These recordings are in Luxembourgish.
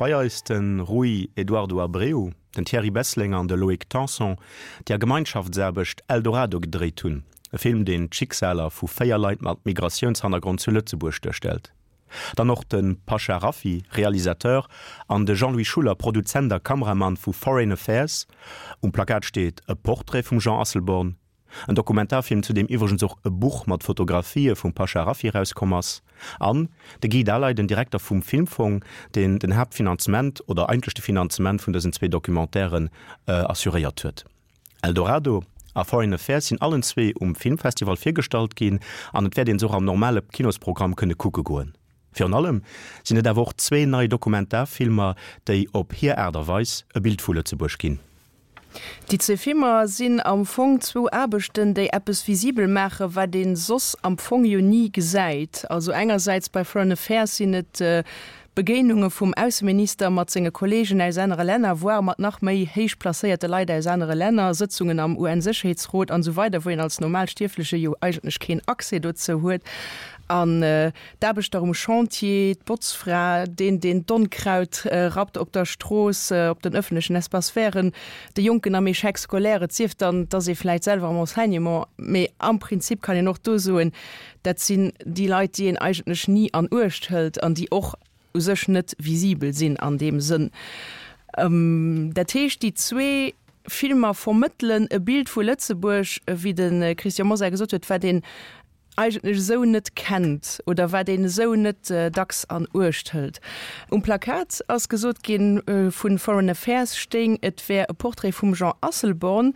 Bei eis de Rui Eduardo Abreu, den Thierry Bessling an de Loïc Tanson, déi a Gemeinschaftsaarbecht Eldorado gedréit hunn, e Film, deen d'Schicksaler vu 4 Leit mat Migratiounshannergrond zu Lëtzebuerg duerstellt. Dann och de Pasha Rafiy, Realisateur, an de Jean-Louis Schuller, Produzent a Kameramann vu Foreign Affairs. Um Plakat steet e Portrait vum Jean Asselborn. En Dokumentarfilm, zu deem iwwregens och e Buch mat Fotografië vum Pasha Rafiy erauskomm ass. An de Guy Daleiden, den Direkter vum Filmfong, deen den Haaptfinanzement oder eigentlech de Finanzement vun dësen zwee Documentairen assuréiert huet. Eldorado a Foreign Affairs sinn allen zwee um Filmfestival virgestallt ginn an et wäert een se och am normale Kinosprogramm kënne kucke goen. Virun allem sinn et awer och zwee nei Dokumentarfilmer, déi op hir Aart a Weis e Bild vu Lëtzebuerg ginn. Déi zwee Filmer sinn am Fong zwou Aarbechten, déi eppes visibel maachen, wat ee soss am Fong jo ni gesäit. Also engersäits bei Foreign Affairs sinn et Begéinunge vum Ausseminister mat senge Kolleegen aus anere Länner, voire mat nach méi héich placéierte Leit aus anere Länner, Sëtzungen am UN-Sécherheetsrot an esou weider, wou een als Normalstierfleche jo eigentlech keen Accès dozou huet. An d'Aarbechter um Chantier, d'Botzfra, deen, deen d'Onkraut rappt op der Strooss, op den ëffentlechen Espaces verten, de Jonken am Échec scolaire, et sief dann, et ass ee vläicht selwer am Enseignement, mee am Prinzip kann een och do soen, Dat sinn déi Leit, déi een eigentlech ni an Uecht hëlt an déi och u sech net visibel sinn an deem Sënn. Dat heescht, déi zwee Filmer vermëttelen e Bild vu Lëtzebuerg, wéi de Christian Mosar gesot huet, wat een eigentlech esou net kennt oder wat een esou net dacks an Uecht hëlt. Um Plakat ass gesot ginn, vu Foreign Affairs stéing, et wär e Portrait vum Jean Asselborn.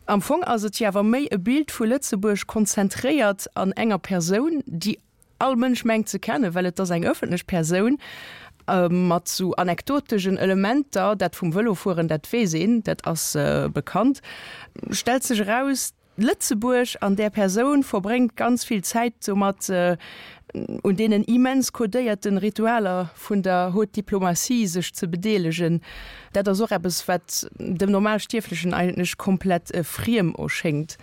Am Fong ass et jo awer méi e Bild vu Lëtzebuerg konzentréiert an enger Persoun, déi all Mënsch mengt ze kennen, well et ass eng ëffentlech Persoun, mat sou anekdotegen Elementer. Dat vum Vëlofueren, dat weess een, dat ass bekannt. Stellt sech eraus, Lëtzebuerg an där Persoun verbréngt ganz vill Zäit domat, un deenen immens codéierten Ritualer vun der Haute Diplomatie sech ze bedeelegen, dat ass och eppes, wat dem Normalstierflechen eigentlech komplett friem erschéngt.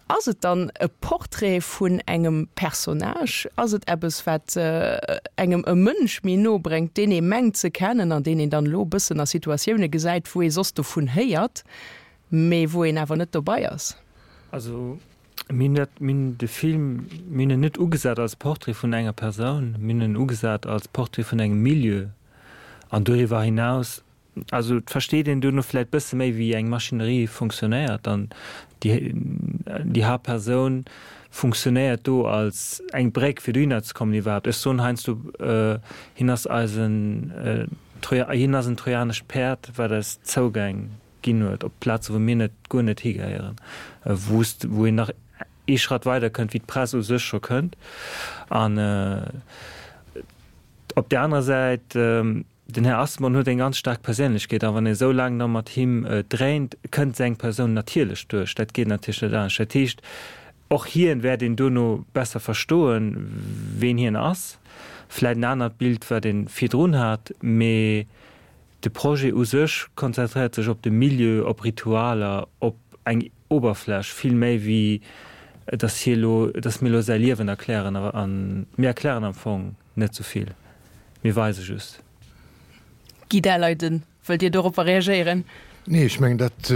Ass et dann e Portrait vun engem Personnage? Ass et eppes, wat engem e Mënsch méi no bréngt, deen ee mengt ze kennen an deen een dann elo e bëssen a Situatioune gesäit, wou ee soss dovun héiert, mee wou een awer net dobei ass? Also Mir hunn dat, mir hunn de Film, mir hunn en net ugesat als Portrait vun enger Persoun, mir hunn en ugesat als Portrait vun engem Milieu. An doriwwer hinaus, also et versteet een duerno vläicht bësse méi, wéi eng Maschinerie funktionéiert. An déi, déi Haaptpersoun funktionéiert do als eng Bréck, fir dohinner ze kommen iwwerhaapt. Ech soen heiansdo, hien ass eisen, hien ass en trojanescht Päerd, wat eis Zougäng ginn huet, op Plaze wou mir net, guer net higehéieren, wou s, wou een nach ee Schratt weider kënnt, wéi d'Press u sech scho kënnt. An op där anerer Säit, den Här Asselborn huet eng ganz staark Perséinlechkeet a wann ee esou laang da mat him dréint, kënnt seng Persoun natierlech duerch. Dat geet natierlech net anescht. Dat heescht, och hien wäert een duerno besser verstoen, ween hien ass. Vläicht en anert Bild, wat ee virdrun hat, mee De Projet u sech konzentréiert sech op de Milieu, op Ritualer, op eng Oberfläch, vill méi wéi dass hie lo, dass mir lo säi Liewen erklären. A mir erklären am Fong net sou vill, mir weise just. Guy Daleiden, wëllt Dir doropper reagéieren? Nee, ech mengen, dat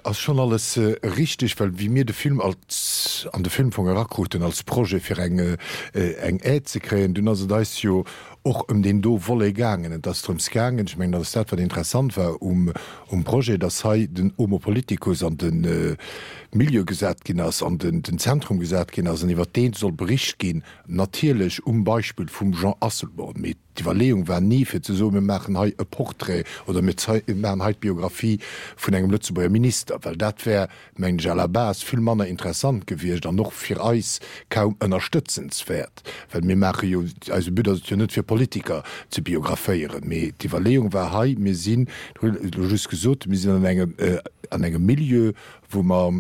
ass schonn alles richteg, well wéi mir de Film als, an de Filmfong erakruten als Projet fir eng, eng Aide ze kréien, dunn ass et eis jo och ëm deen do Volet gaangen. Et ass drëms gaangen, ech mengen, dat ass dat, wat interessant war um, um Projet, dass hei den Homo politicus an de Milieu gesat ginn ass, an den, den Zentrum gesat ginn ass an iwwert dee soll bericht ginn, natierlech um Beispill vum Jean Asselborn. Mee D'Iwwerleeung war ni, fir ze soen, mir maachen hei e Portrait oder mir maachen hei d'Biographie vun engem Lëtzebuerger Minister, well dat wär, mengen ech, à la base vill manner interessant gewiescht an och fir eis kaum ënnerstëtzenswäert, well mir maache jo, eise But ass et jo net, fir Politiker ze biographéieren. Mee d'Iwwerleeung war hei, mir sinn, hu elo just gesot, mir sinn an engem, an engem Milieu, wou mer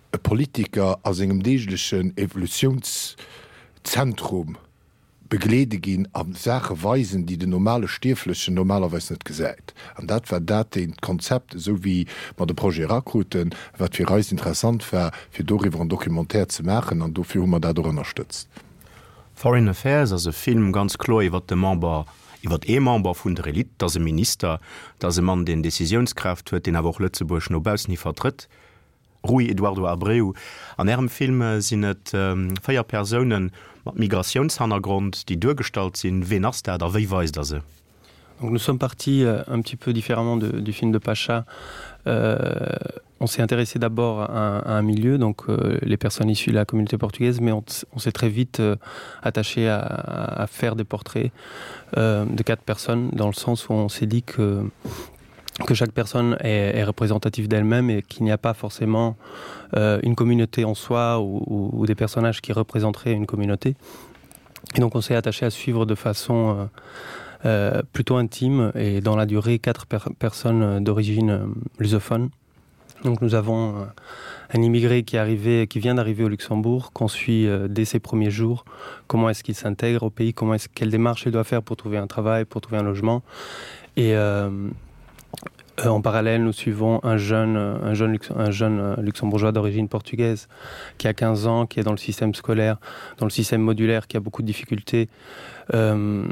e Politiker a sengem deeglechen Evolutionszentrum, begleede ginn a Saache weisen, déi den normale Stierflechen normalerweis net gesäit. An dat war dat deent Konzept, esou wéi mer de Projet erakruten, wat fir eis interessant war, fir doriwwer en Documentaire ze maachen. An dofir hu mer dat och ënnerstëtzt. Foreign Affairs ass e Film ganz kloer iwwer de Member, Iwwert ee Member vun der Elite, dat ass e Minister, dat ass e Mann, deen Decisiounskraaft huet, deen awer och Lëtzebuerg no baussen hi vertrëtt. Rui Eduardo Abreu, An Ärem Film sinn et 4 Persounen mat Migratiounshannergrond, déi duergestallt sinn. Ween ass dat a wéi weist Der se? Donc nous sommes partis euh, un petit peu différemment de, du film de Pacha. Euh, on s'est intéressé d'abord à, à un milieu, donc euh, les personnes issues de la communauté portugaise, mais on, on s'est très vite euh, attaché à, à faire des portraits euh, de quatre personnes, dans le sens où on s'est dit que que chaque personne est, est représentative d'elle-même et qu'il n'y a pas forcément euh, une communauté en soi ou, ou, ou des personnages qui représenteraient une communauté. Et donc on s'est attaché à suivre de façon euh, euh, plutôt intime et dans la durée quatre per personnes d'origine euh, lusophone. Donc nous avons euh, un immigré qui est arrivé qui vient d'arriver au Luxembourg, qu'on suit euh, dès ses premiers jours, comment est-ce qu'il s'intègre au pays, comment est-ce quelle démarche il doit faire pour trouver un travail, pour trouver un logement. Et euh, euh, en parallèle, nous suivons un jeune, un jeune, un jeune euh, luxembourgeois d'origine portugaise qui a 15 ans, qui est dans le système scolaire, dans le système modulaire, qui a beaucoup de difficultés euh,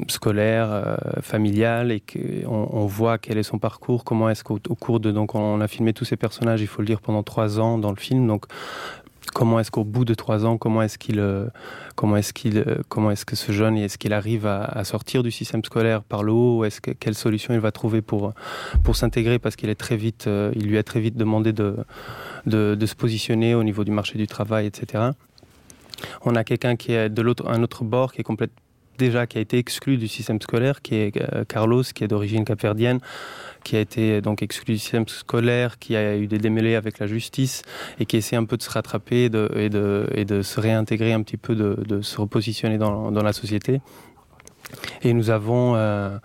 scolaires, euh, familiales et qu'on on voit quel est son parcours, comment est-ce qu'au cours de donc on a filmé tous ces personnages, il faut le dire pendant trois ans dans le film donc comment est-ce qu'au bout de trois ans comment est-ce qu'il euh, comment est-ce qu'il euh, comment est-ce que ce jeune est-ce qu'il arrive à, à sortir du système scolaire par le haut est-ce que quelle solution il va trouver pour pour s'intégrer parce qu'il est très vite euh, il lui a très vite demandé de, de de se positionner au niveau du marché du travail etc on a quelqu'un qui est de l'autre un autre bord qui est complètement déjà qui a été exclu du système scolaire qui est euh, Carlos qui est d'origine capverdienne qui a été donc exclu du système scolaire qui a eu des démêlés avec la justice et qui essaie un peu de se rattraper de, et, de, et de se réintégrer un petit peu de, de se repositionner dans, dans la société et nous avons euh,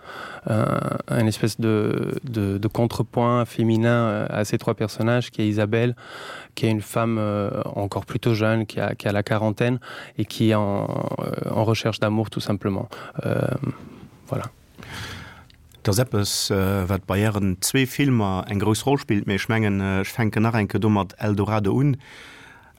un, un espèce de, de, de contrepoint féminin euh, à ces trois personnages qui est Isabelle qui est une femme euh, encore plutôt jeune qui a, qui a la quarantaine et qui est en, euh, en recherche d'amour tout simplement euh, voilà. Dat ass eppes, wat bei Ären zwee Filmer eng grouss Roll spillt, mee ech mengen, ech fänken nach eng Kéier do mat Eldorado un.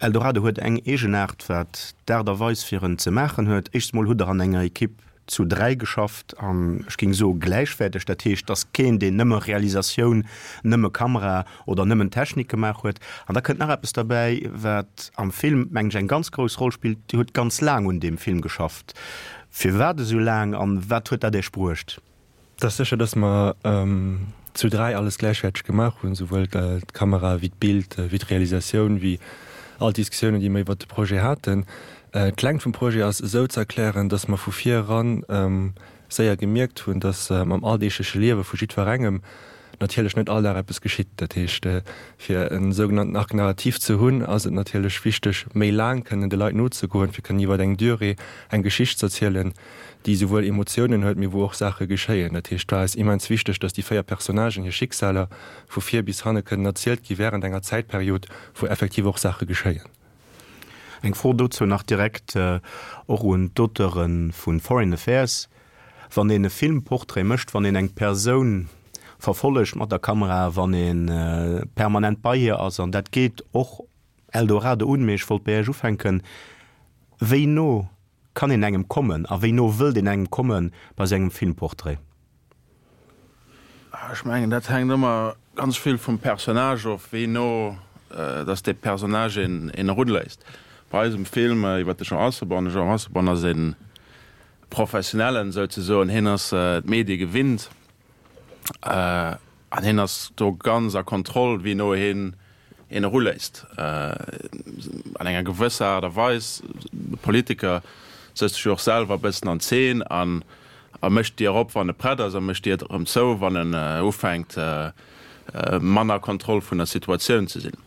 Eldorado huet eng Eegenaart, wat d'Aart a Weis fir en ze maachen huet. Éischts mol hutt Der an enger Ekipp zu 3 geschafft an ech géing soe gläichwäerteg. Dat heescht, et ass keen, deen nëmme Realisatioun, nëmme Kamera oder nëmmen Technik gemaach huet. An da kënnt nach eppes derbäi, wat am Film, mengen ech, eng ganz grouss Roll spillt, Dir hutt ganz laang un deem Film geschafft. Firwat esou laang an wat huet dat Iech bruecht? Et ass sécher, dass mer zu 3 alles gläichwäerteg gemaach hunn, souwuel d'Kamera wéi d'Bild, wéi d'Realisatioun, wéi all d'Diskussiounen, déi mer iwwert de Projet haten. D'Längt vum Projet ass esou ze erklären, dass mer vu vir eran séier gemierkt hunn, dass am alldeegleche Liewe vu jiddwerengem natierlech net all Dag eppes geschitt. Dat heescht, fir e sougenannten Arc narratif ze hunn, ass et natierlech wichteg, méi laang kënnen de Leit nozegoen, fir kënnen iwwer eng Durée eng Geschicht z'erzielen, déi souwuel Emotiounen huet, mee wou och Saache geschéien. Dat heescht, et war eis immens wichteg, dass déi 4 Personnagen hir Schicksaler vu vir bis hanne kënnen erzielt gi wärend enger Zäitperiod, wou effektiv och Saache geschéien. Eng Fro dozou nach direkt och un d'Auteure vu Foreign Affairs, Wann een e Filmportrait mécht, wann een eng Persoun verfollegt mat der Kamera, wann ee permanent bei hir ass, an dat geet och Eldorado un, mee ech wollt bei Iech ufänken, wéi no kann een engem kommen a wéi no wëllt een engem komme bei sou engem Filmportrait? Ech mengen, dat hänkt ëmmer ganz vill vum Personnage of, wéi no dass dee Personnage een erunléisst. Bei eisem Film iwwer de Jean Asselborn, de Jean Asselborn ass e Professionellen souzesoen, hien ass d'Medie gewinnt an hien ass do ganz a Kontroll, wéi no hien een eruléisst. An enger gewësser Aart a Weis, de Politiker sëtzt sech jo och selwer e bëssen an Zeen an a mécht d'Dier op, wann e prett ass, a mécht d'Dier erëm zou, wann en ufänkt, manner Kontroll vun der Situatioun ze sinn.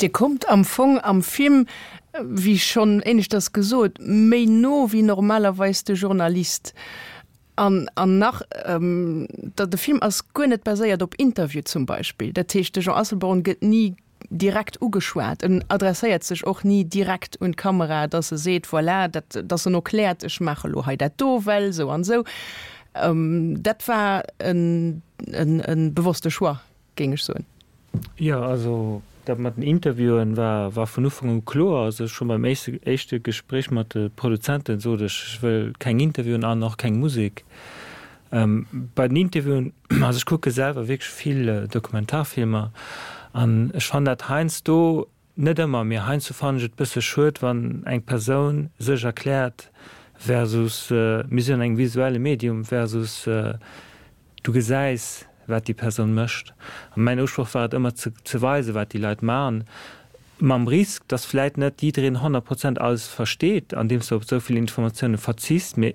Dir kommt am Fong am Film, wéi schonn éineschters gesot, méi no wéi normalerweis de Journalist. An, an nach, da de Film ass guer net baséiert op Interview zum Beispill. Dat heescht, de Jean Asselborn gëtt ni direkt ugeschwat. En adresséiert sech och ni direkt un d'Kamera, dass e seet, voilà, dat, dass en erkläert, ech maache lo hei dat do, well esou an esou. Dat war en, en, e bewosste Choix, géing ech soen. Jo, also. Dat mat den Interviewen war war vun Ufank u kloer. Also scho beim éischte éischte Gespréich mat de Produzenten sot ech, ech wëll keng Interviewen an och keng Musek. Bei den Interviewen, also ech kucke selwer wierklech vill Dokumentarfilmer an ech fannen dat heiansdo, net ëmmer, mee heiansdo fannen ech et bësse schued, wann eng Persoun sech erkläert versus mir sinn an engem visuelle Medium versus Du gesäis, wat déi Persoun mécht. A mäin Usproch war et ëmmer ze ze weisen, wat déi Leit maachen, mam Risk, dass vläit net jiddereen 100 Prozent alles versteet, andeems de op esou vill Informatioune verzichts. Mee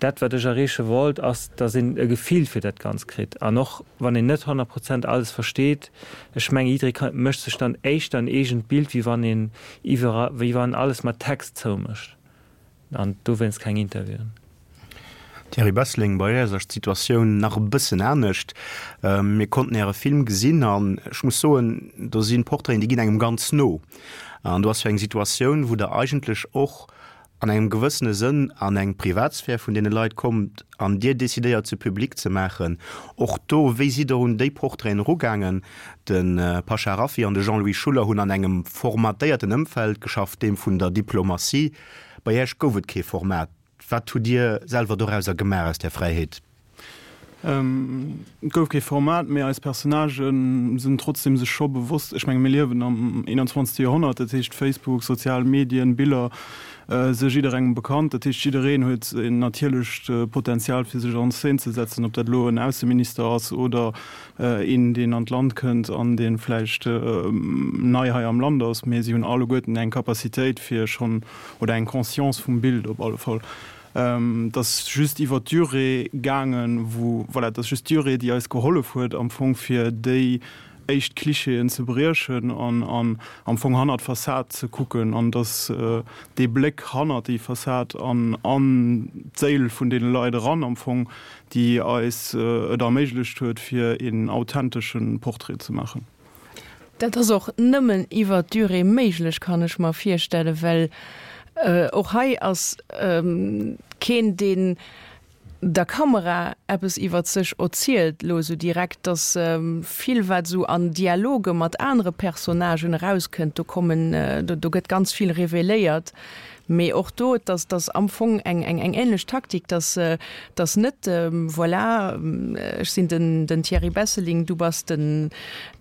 dat, wat ech erreeche wollt, ass, dass een e Gefill fir dat Ganzt kritt. An och wann een net 100 Prozent alles versteet, ech menge jidderee ka mécht sech dann éischter en eegent Bild, wéi wann een iwwer wéi wann alles mat Text zoumécht. An dowéinst keng Interviewen. Thierry Besseling, Bei Iech ass d'Situatioun nach e bëssen anescht. Mir konnten Äre Film gesinn an ech muss soen, do si Portraiten, déi ginn engem ganz no. An do ass jo eng Situatioun, wou Der eigentlech och an engem gewëssene Sënn an eng Privatsphär vun deene Leit kommt an Dir decidéiert se public ze maachen. Och do, wéi sidd Der un déi Portraiten erugaangen? De Pasha Rafi an de Jean-Louis Schuller hunn an engem formatéierten Ëmfeld geschafft, deem vun der Diplomatie. Bei Iech gouf et kee Format. Wat hutt Dir selwer dorauser gemaach, aus där Fräiheet? Et gouf kee Format, mee eis Personnagë sinn trotzdeem sech scho bewosst, ech menge mir liewen am 21. Joerhonnert, dat heescht Facebook, sozial Medien, Biller si jidderengem bekannt. Dat heescht jiddereen huet en natierlecht Potenzial fir sech an Szene ze setzen, ob dat elo en Ausseminister ass oder een deen an d'Land kënnt an dee vläicht nei hei am Land ass, mee si hunn alleguerten eng Capacitéit fir schonn, oder eng Conscience vum Bild op alle Fall. Et ass just iwwer d'Durée gaangen, wou, voilà, et ass just d'Durée déi eis gehollef huet am Fong fir déi éischt Klischeeën ze briechen an am Fong hannert d'Fassad ze kucken an dass dee Bléck hannert déi Fassad an an d'Séil vun deene Leit eran am Fong déi eis et erméiglecht huet, fir een authentesche Portrait ze maachen. Dat ass och nëmmen iwwer d'Durée méiglech, kann ech mer virstellen, well och hei ass keen, deen der Kamera eppes iwwer sech erzielt elo esou direkt. Dass vill, wat esou an Dialoge mat anere Personnagen erauskënnt, do kommen, do gëtt ganz vill reveléiert. Mee och do, et ass, et ass am Fong eng, eng, eng ähnlech Taktik, dass, dass net, voilà, ech sinn den, den Thierry Besseling, du bass den,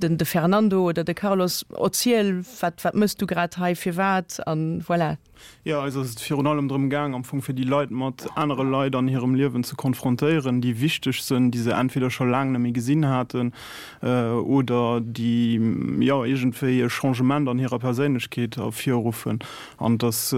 den, de Fernando oder de Carlos, erziel, wat, wat méchs du grad hei, firwat an voilà. Jo, eis ass et virun allem drëm gaang, am Fong fir déi Leit mat anere Leit an hirem Liewen ze konfrontéieren, déi wichteg sënn, déi se entweder scho laang net méi gesinn haten oder déi, jo, iergendwéi e Changement an hirer Perséinlechkeet ervirruffen. An dass,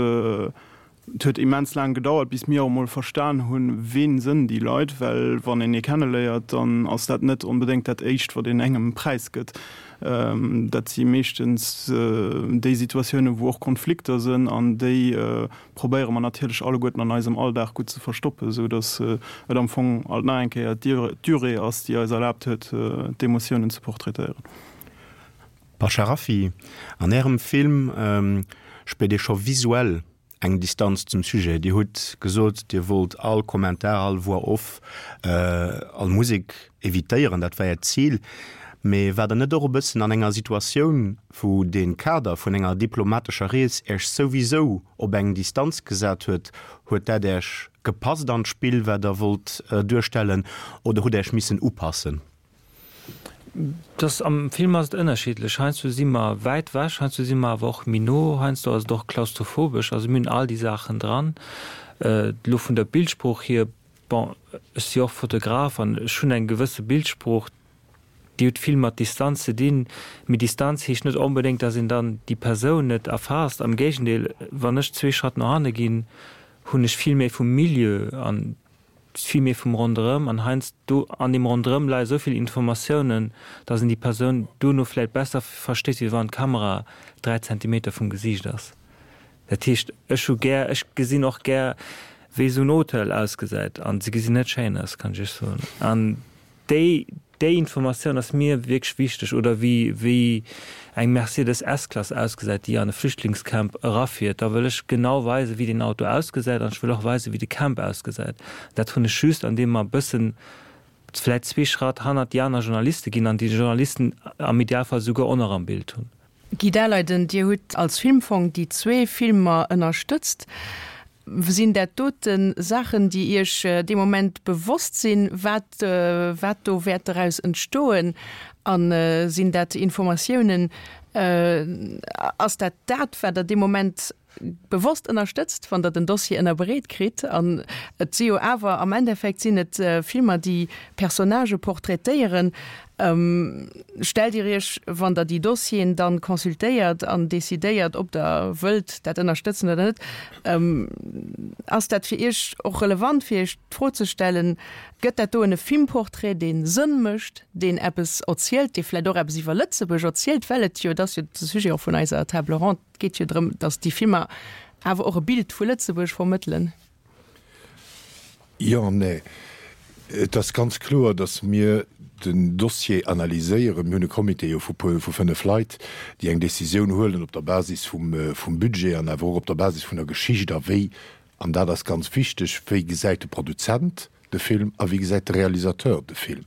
et huet immens laang gedauert, bis mir och emol verstan hunn, ween sënn déi Leit, well wann een ee kenneléiert, dann ass dat net onbedéngt dat Éischt, wat een engem präisgëtt. Dat si meeschtens déi Situatiounen, wou och Konflikter sënn, an déi probéiere mer natierlech alleguerten an eisem Alldag gutt ze verstoppen, esou dass et am Fong alt nach eng Kéier d'Durée ass, déi eis erlaabt huet, d'Emotiounen ze portraitéieren. Bachar Raffi, An Ärem Film spiert ee scho visuell eng Distanz zum Sujet. Dir hutt gesot, Dir wollt all Kommentar, all Voix off, all Musek evitéieren, dat war Äert Zil. Mee waart Der net och e bëssen an enger Situatioun, wou de Kader vun enger diplomatescher Rees Äech souwisou op eng Distanz gesat huet? Huet dat Äech gepasst an d'Spill, wat Der wollt duerstellen, oder hutt Der Äech missen upassen? Dass am Film ass et ënnerschiddlech. Heiansdo si mer wäit wech, heiansdo si mer awer och méi no, heiansdo ass et och klaustrophobesch. Also mir hunn all déi Saachen dran. Elo vun der Bildsprooch hier, bon, ech si och Fotograf an ech hunn eng gewësse Bildsprooch, déi huet vill mat Distanz ze dinn. Mee Distanz heescht net onbedéngt, dass een dann déi Persoun net erfaasst. Am Géigendeel, wann ech zwee Schratt no hanne ginn, hunn ech vill méi vum Milieu an vill méi vum Ronderëm an heiansdo an deem Ronderëm leie sou vill Informatiounen, datt een déi Persoun duerno vläit besser versteet, wéi wann d'Kamera 3 Zentimeter vum Gesiicht ass. Dat heescht, ech hu gär, ech gesinn och gär, wéi esou en Hotel ausgesäit an se gesinn net schéin aus, kann ech iech soen. An déi Déi Informatioun ass mir wierklech wichteg. Oder wéi wéi eng Mercedes S-Klass ausgesäit, déi an e Flüchtlingscamp erafiert. Da wëll ech genau weisen, wéi deen Auto ausgesäit an ech wëll och weisen, wéi de Camp ausgesäit. Dat hunn ech just, andeem mer e bëssen. vläit zwee Schratt hannert déi aner Journaliste ginn an déi Journalisten am Idealfall souguer och nach am Bild hunn. Guy Daleiden, Dir hutt als Filmfong déi zwee Filmer ënnerstëtzt. Sinn dat dote Saachen, déi Iech dee Moment bewosst sinn, wat, wat do wäert doraus entstoen? A sinn dat Informatiounen, ass dat dat, wat Der dee Moment bewosst ënnerstëtzt, wann Der den Dossier ënnerbreet kritt? An et si jo awer, am Endeffekt sinn et Filmer, déi Personnagë portraitéieren. Stellt Dir Iech, wann Der déi Dossieren dann consultéiert an decidéiert, ob Der wëllt dat ënnerstëtzen oder net, ass dat fir Iech och relevant, fir Iech d'Fro ze stellen, Gëtt dat doen e Filmportrait, dee Sënn mécht, deen eppes erzielt, dee vläicht och eppes iwwer Lëtzebuerg erzielt, well et jo, et ass jo de Sujet och vun eiser Table ronde, et geet jo drëm, datt déi Filmer awer och e Bild vu Lëtzebuerg vermëttelen? Jo an nee. Et ass ganz kloer, datt mir den Dossier analyséieren. Mir hunn e Comité jo vu puer, vu 5 Leit, déi eng Décisioun huelen op der Basis vum, vum Budget an awer och op der Basis vun der Geschicht a wéi, an dat ass ganz wichteg, wéi gesäit de Produzent de Film a wéi gesäit de Realisateur de Film.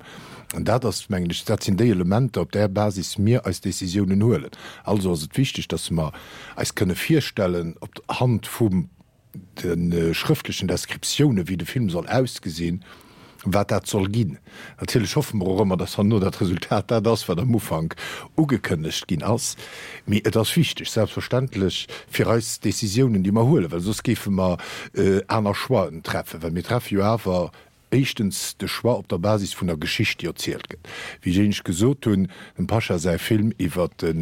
An dat ass, mengen ech, dat sinn déi Elementer, op där Basis mir eis Décisiounen huelen. Also ass et wichteg, datt mer eis kënne virstellen, op Hand vum de schrëftlechen Descriptiounen, wéi de Film soll ausgesinn, wat dat soll ginn. Natierlech hoffe mer och ëmmer, dass herno dat Resultat dat ass, wat am Ufank ugekënnegt ginn ass. Mee et ass wichteg, selbstverständlech, fir eis Décisiounen, déi mer huelen, well soss géife mer aner Choixen treffen, well mir treffe jo awer éischtens de Choix op der Basis vun der Geschicht, déi erzielt gëtt. Wéi ech éinescht gesot hunn, dem Pasha säi Film iwwer de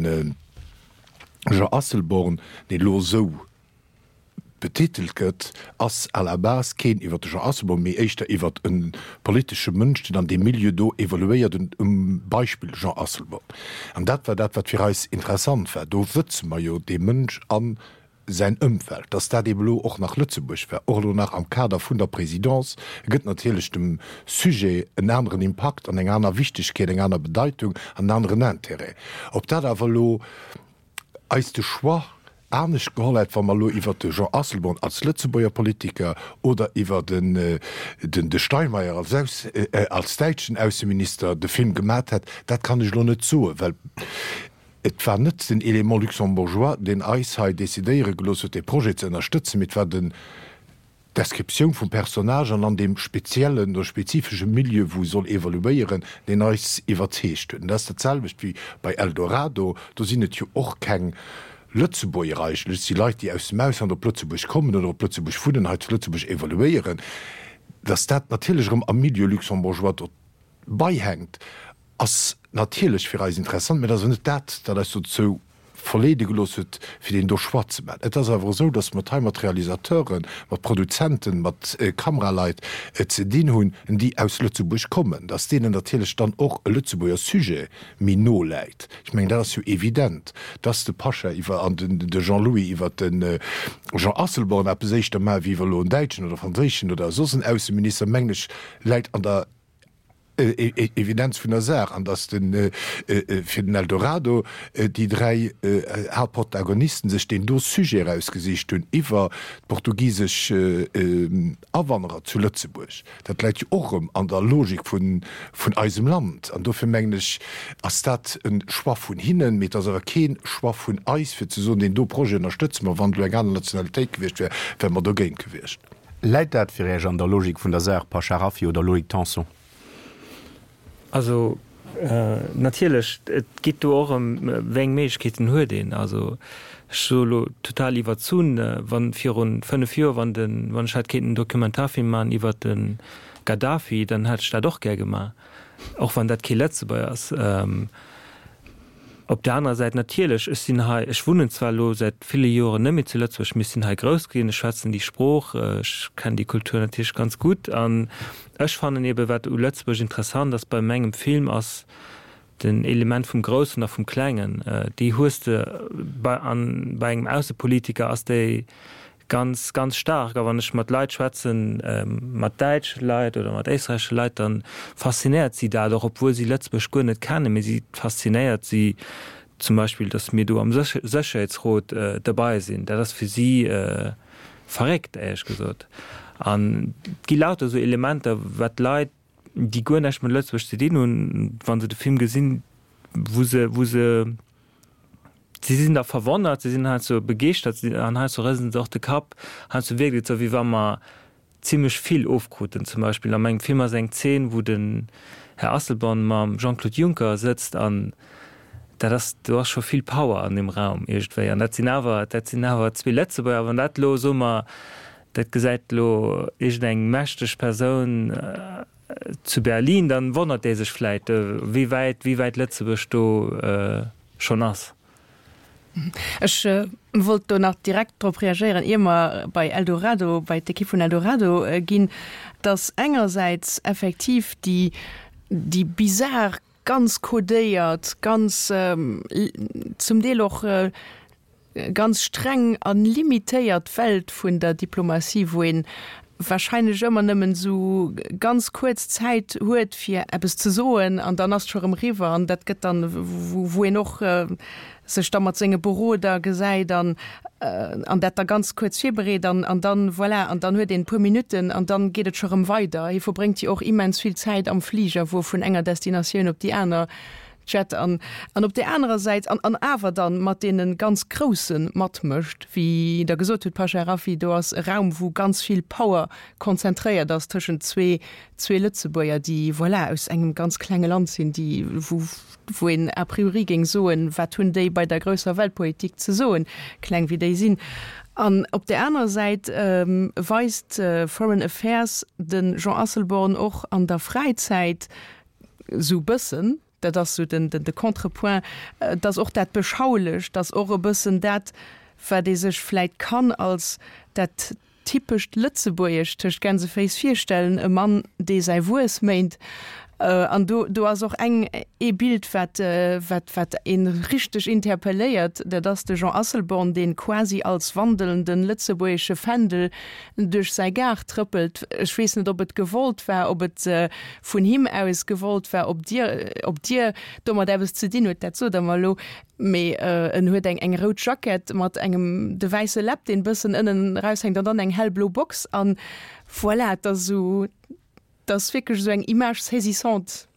Jean Asselborn, deen elo esou betitelt gëtt, ass à la base keen iwwer de Jean Asselborn, mee éischter iwwer e politesche Mënsch, deen an deem Milieu do evoluéiert, um Beispill Jean Asselborn. An dat war dat, wat fir eis interessant war. Do wëtze mer jo dee Mënsch a säin Ëmfeld. Dass dat eeben elo och nach Lëtzebuerg war, och elo nach am Kader vun der Présidence, gëtt natierlech dem Sujet en aneren Impakt an eng aner Wichtigkeet, eng aner Bedeitung an en aneren Intérêt. Ob dat awer elo eis de Choix anescht geholl hätt, wa mer elo iwwert de Jean Asselborn als Lëtzebuerger Politiker oder iwwer den de Steinmeier als Aus als däitschen Ausseminister de Film gemat hätt, dat kann ech elo net soen, well et war net den Élément luxembourgeois, deen eis hei decidéiere gelooss huet, dee Projet ze ënnerstëtzen, mee et war den D'Descriptioun vum Personnage an an deem speziellen oder spezifesche Milieu, wou e soll evoluéieren, deen eis iwwerzeegt huet. An dat ass dat selwecht wéi bei Eldorado. Do sinn et jo och keng Lëtzebuerger eigentlech, et si Leit, déi aus dem Ausland op Lëtzebuerg kommen oder op Lëtzebuerg wunnen, hei zu Lëtzebuerg evoluéieren. Datt dat natierlech erëm am Milieu luxembourgeois dobäihänkt, Ass natierlech fir eis interessant, mä et ass awer net dat, dat eis dozou verleede gelooss huet, fir deen do Choix ze maachen. Et ass awer esou, datt mer et hei mat Realisateuren, mat Produzenten, mat Kameraleit ze dinn hunn, déi aus Lëtzebuerg kommen, datt deenen natierlech dann och e Lëtzebuerger Sujet méi no läit. Ech mengen, dat ass jo evident, datt de Pasha iwwer an de Jean-Louis iwwer de Jean Asselborn eppes éischter maachen, wéi iwwer elo en däitschen oder franséischen oder soss en Ausseminister, mengen ech, läit an der Evidenz vun der Saach, an datt de fir den Eldorado déi 3 Haaptprotagonisten sech deen do Sujet erausgesicht hunn iwwer d'portugisesch Awanderer zu Lëtzebuerg, dat läit jo och erëm an der Logik vun eisem Land. An dofir mengen ech, ass dat e Choix vun hinnen, mee et ass awer kee Choix vun eis, fir ze soen, deen do Projet ënnerstëtze mer. Wann et elo eng aner Nationalitéit gewiescht wär, wäre mer dogéint gewiescht. Läit dat fir Iech an der Logik vun der Saach, Pasha Rafiy oder Loïc Tanson? Also natierlech, et geet do och ëm, wéi eng Méiglechkeeten huet een. Also ech soe lo total iwwerzunn, wann virun 5 Joer, wann den, wann ech hätt kéinten en Dokumentarfilm maachen iwwert de Gaddafi, dann hätt ech dat och gär gemaach, och wann dat kee Lëtzebuerger ass. Op der anerer Säit natierlech, ech sinn hei, ech wunnen zwar elo säit ville Joren net méi zu Lëtzebuerg, mee ech sinn hei grouss ginn, ech schwätzen déi Sprooch, ech kennen déi Kultur natierlech ganz gutt. An ech fannen eebe wat u Lëtzebuerg interessant ass bei mengem Film ass den Element vum Groussen a vum Klengen. Déi hues de bei an bei engem Aussepolitiker ass déi Ganz, ganz staark. A wann ech mat Leit schwätzen, mat däitsche Leit oder mat éisträichesche Leit, da faszinéiert si dat och, obwuel si Lëtzebuerg guer net kennen. Mee si faszinéiert si zum Beispill, datt mir do am Sécherheetsrot derbei sinn. Dat ass fir si verréckt, éierlech gesot. An et gi lauter esou Elementer, wat d'Leit. déi guer näischt mat Lëtzebuerg ze dinn hunn, wa se de Film gesinn, wou se, wou se, si sinn da verwonnert, si sinn heiansdo begeeschtert an heiansdo rëselen se och de Kapp. Heiansdo wierkt et esou, wéi wa mer zimlech vill ofkruten. Zum Beispill a mengem Film ass eng Zeen, wou den Här Asselborn mam Jean-Claude Juncker sëtzt an dat ass, do ass scho vill Power an deem Raum iergendwéi. An dat sinn awer, dat sinn awer zwee Lëtzebuerger. Wann dat elo, soe mer, dat gesäit elo iergendeng mächteg Persoun zu Berlin, dann wonnert dee sech vläit, wéi wäit, wéi wäit Lëtzebuerg do schonn ass. Ech wollt do nach direkt drop reagéieren, ier mer bei Eldorado, bei d'Ekipp vun Eldorado ginn, dass engersäits effektiv déi, déi bizar, ganz codéiert, ganz zum Deel och ganz streng a limitéiert Welt vun der Diplomatie, wou een wahrscheinlech ëmmer nëmmen esou ganz kuerz Zäit huet fir eppes ze soen an dann ass et scho rëm eriwwer an dat gëtt dann, wou een och sech da mat senge Beroder gesäit an an dat da ganz kuerz virbereet an an dann, voilà, an dann huet een e puer Minutten an dann geet et scho rëm weider. Hie verbréngt jo och immens vill Zäit am Fliger, wou e vun enger Destinatioun op déi aner Jet an an op där anerer Säit an an awer dann mat deene ganz Grousse matmécht, wéi Der gesot hutt, Pasha Rafi, do ass e Raum, wou ganz vill Power konzentréiert ass tëschent zwee zwee Lëtzebuerger, déi, voilà, aus engem ganz klenge Land sinn, déi wou wou een a priori géing soen, wat hunn déi bei der grousser Weltpolitik ze soen, kleng wéi déi sinn. An op där anerer Säit weist Foreign Affairs de Jean Asselborn och an der Fräizäit, Sou bëssen, dat ass sou den, de Contrepoint, dass och dat Beschaulecht, dass och e bëssen dat, wat ee sech vläit kann als dat typescht Lëtzebuergescht tëscht Gänseféiss virstellen, e Mann, dee säi Wuess méint. An do, do ass och eng, ee Bild, wat, wat, wat ee richteg interpelléiert, dat ass de Jean Asselborn, dee quasi als wandelnden lëtzebuergesche Fändel duerch säi Gaart trëppelt. Ech weess net, ob et gewollt war, ob et vun him aus gewollt war, ob Dir, ob Dir domat eppes ze dinn hutt, dat sot Der mer elo. Mee en huet eng, eng rout Jackett mat engem, de wäisse Läpp, deen e bëssen ënnen eraushänkt, an dann eng hellblo Box. An voilà, et ass esou, et ass wierklech esou eng Image saisissante.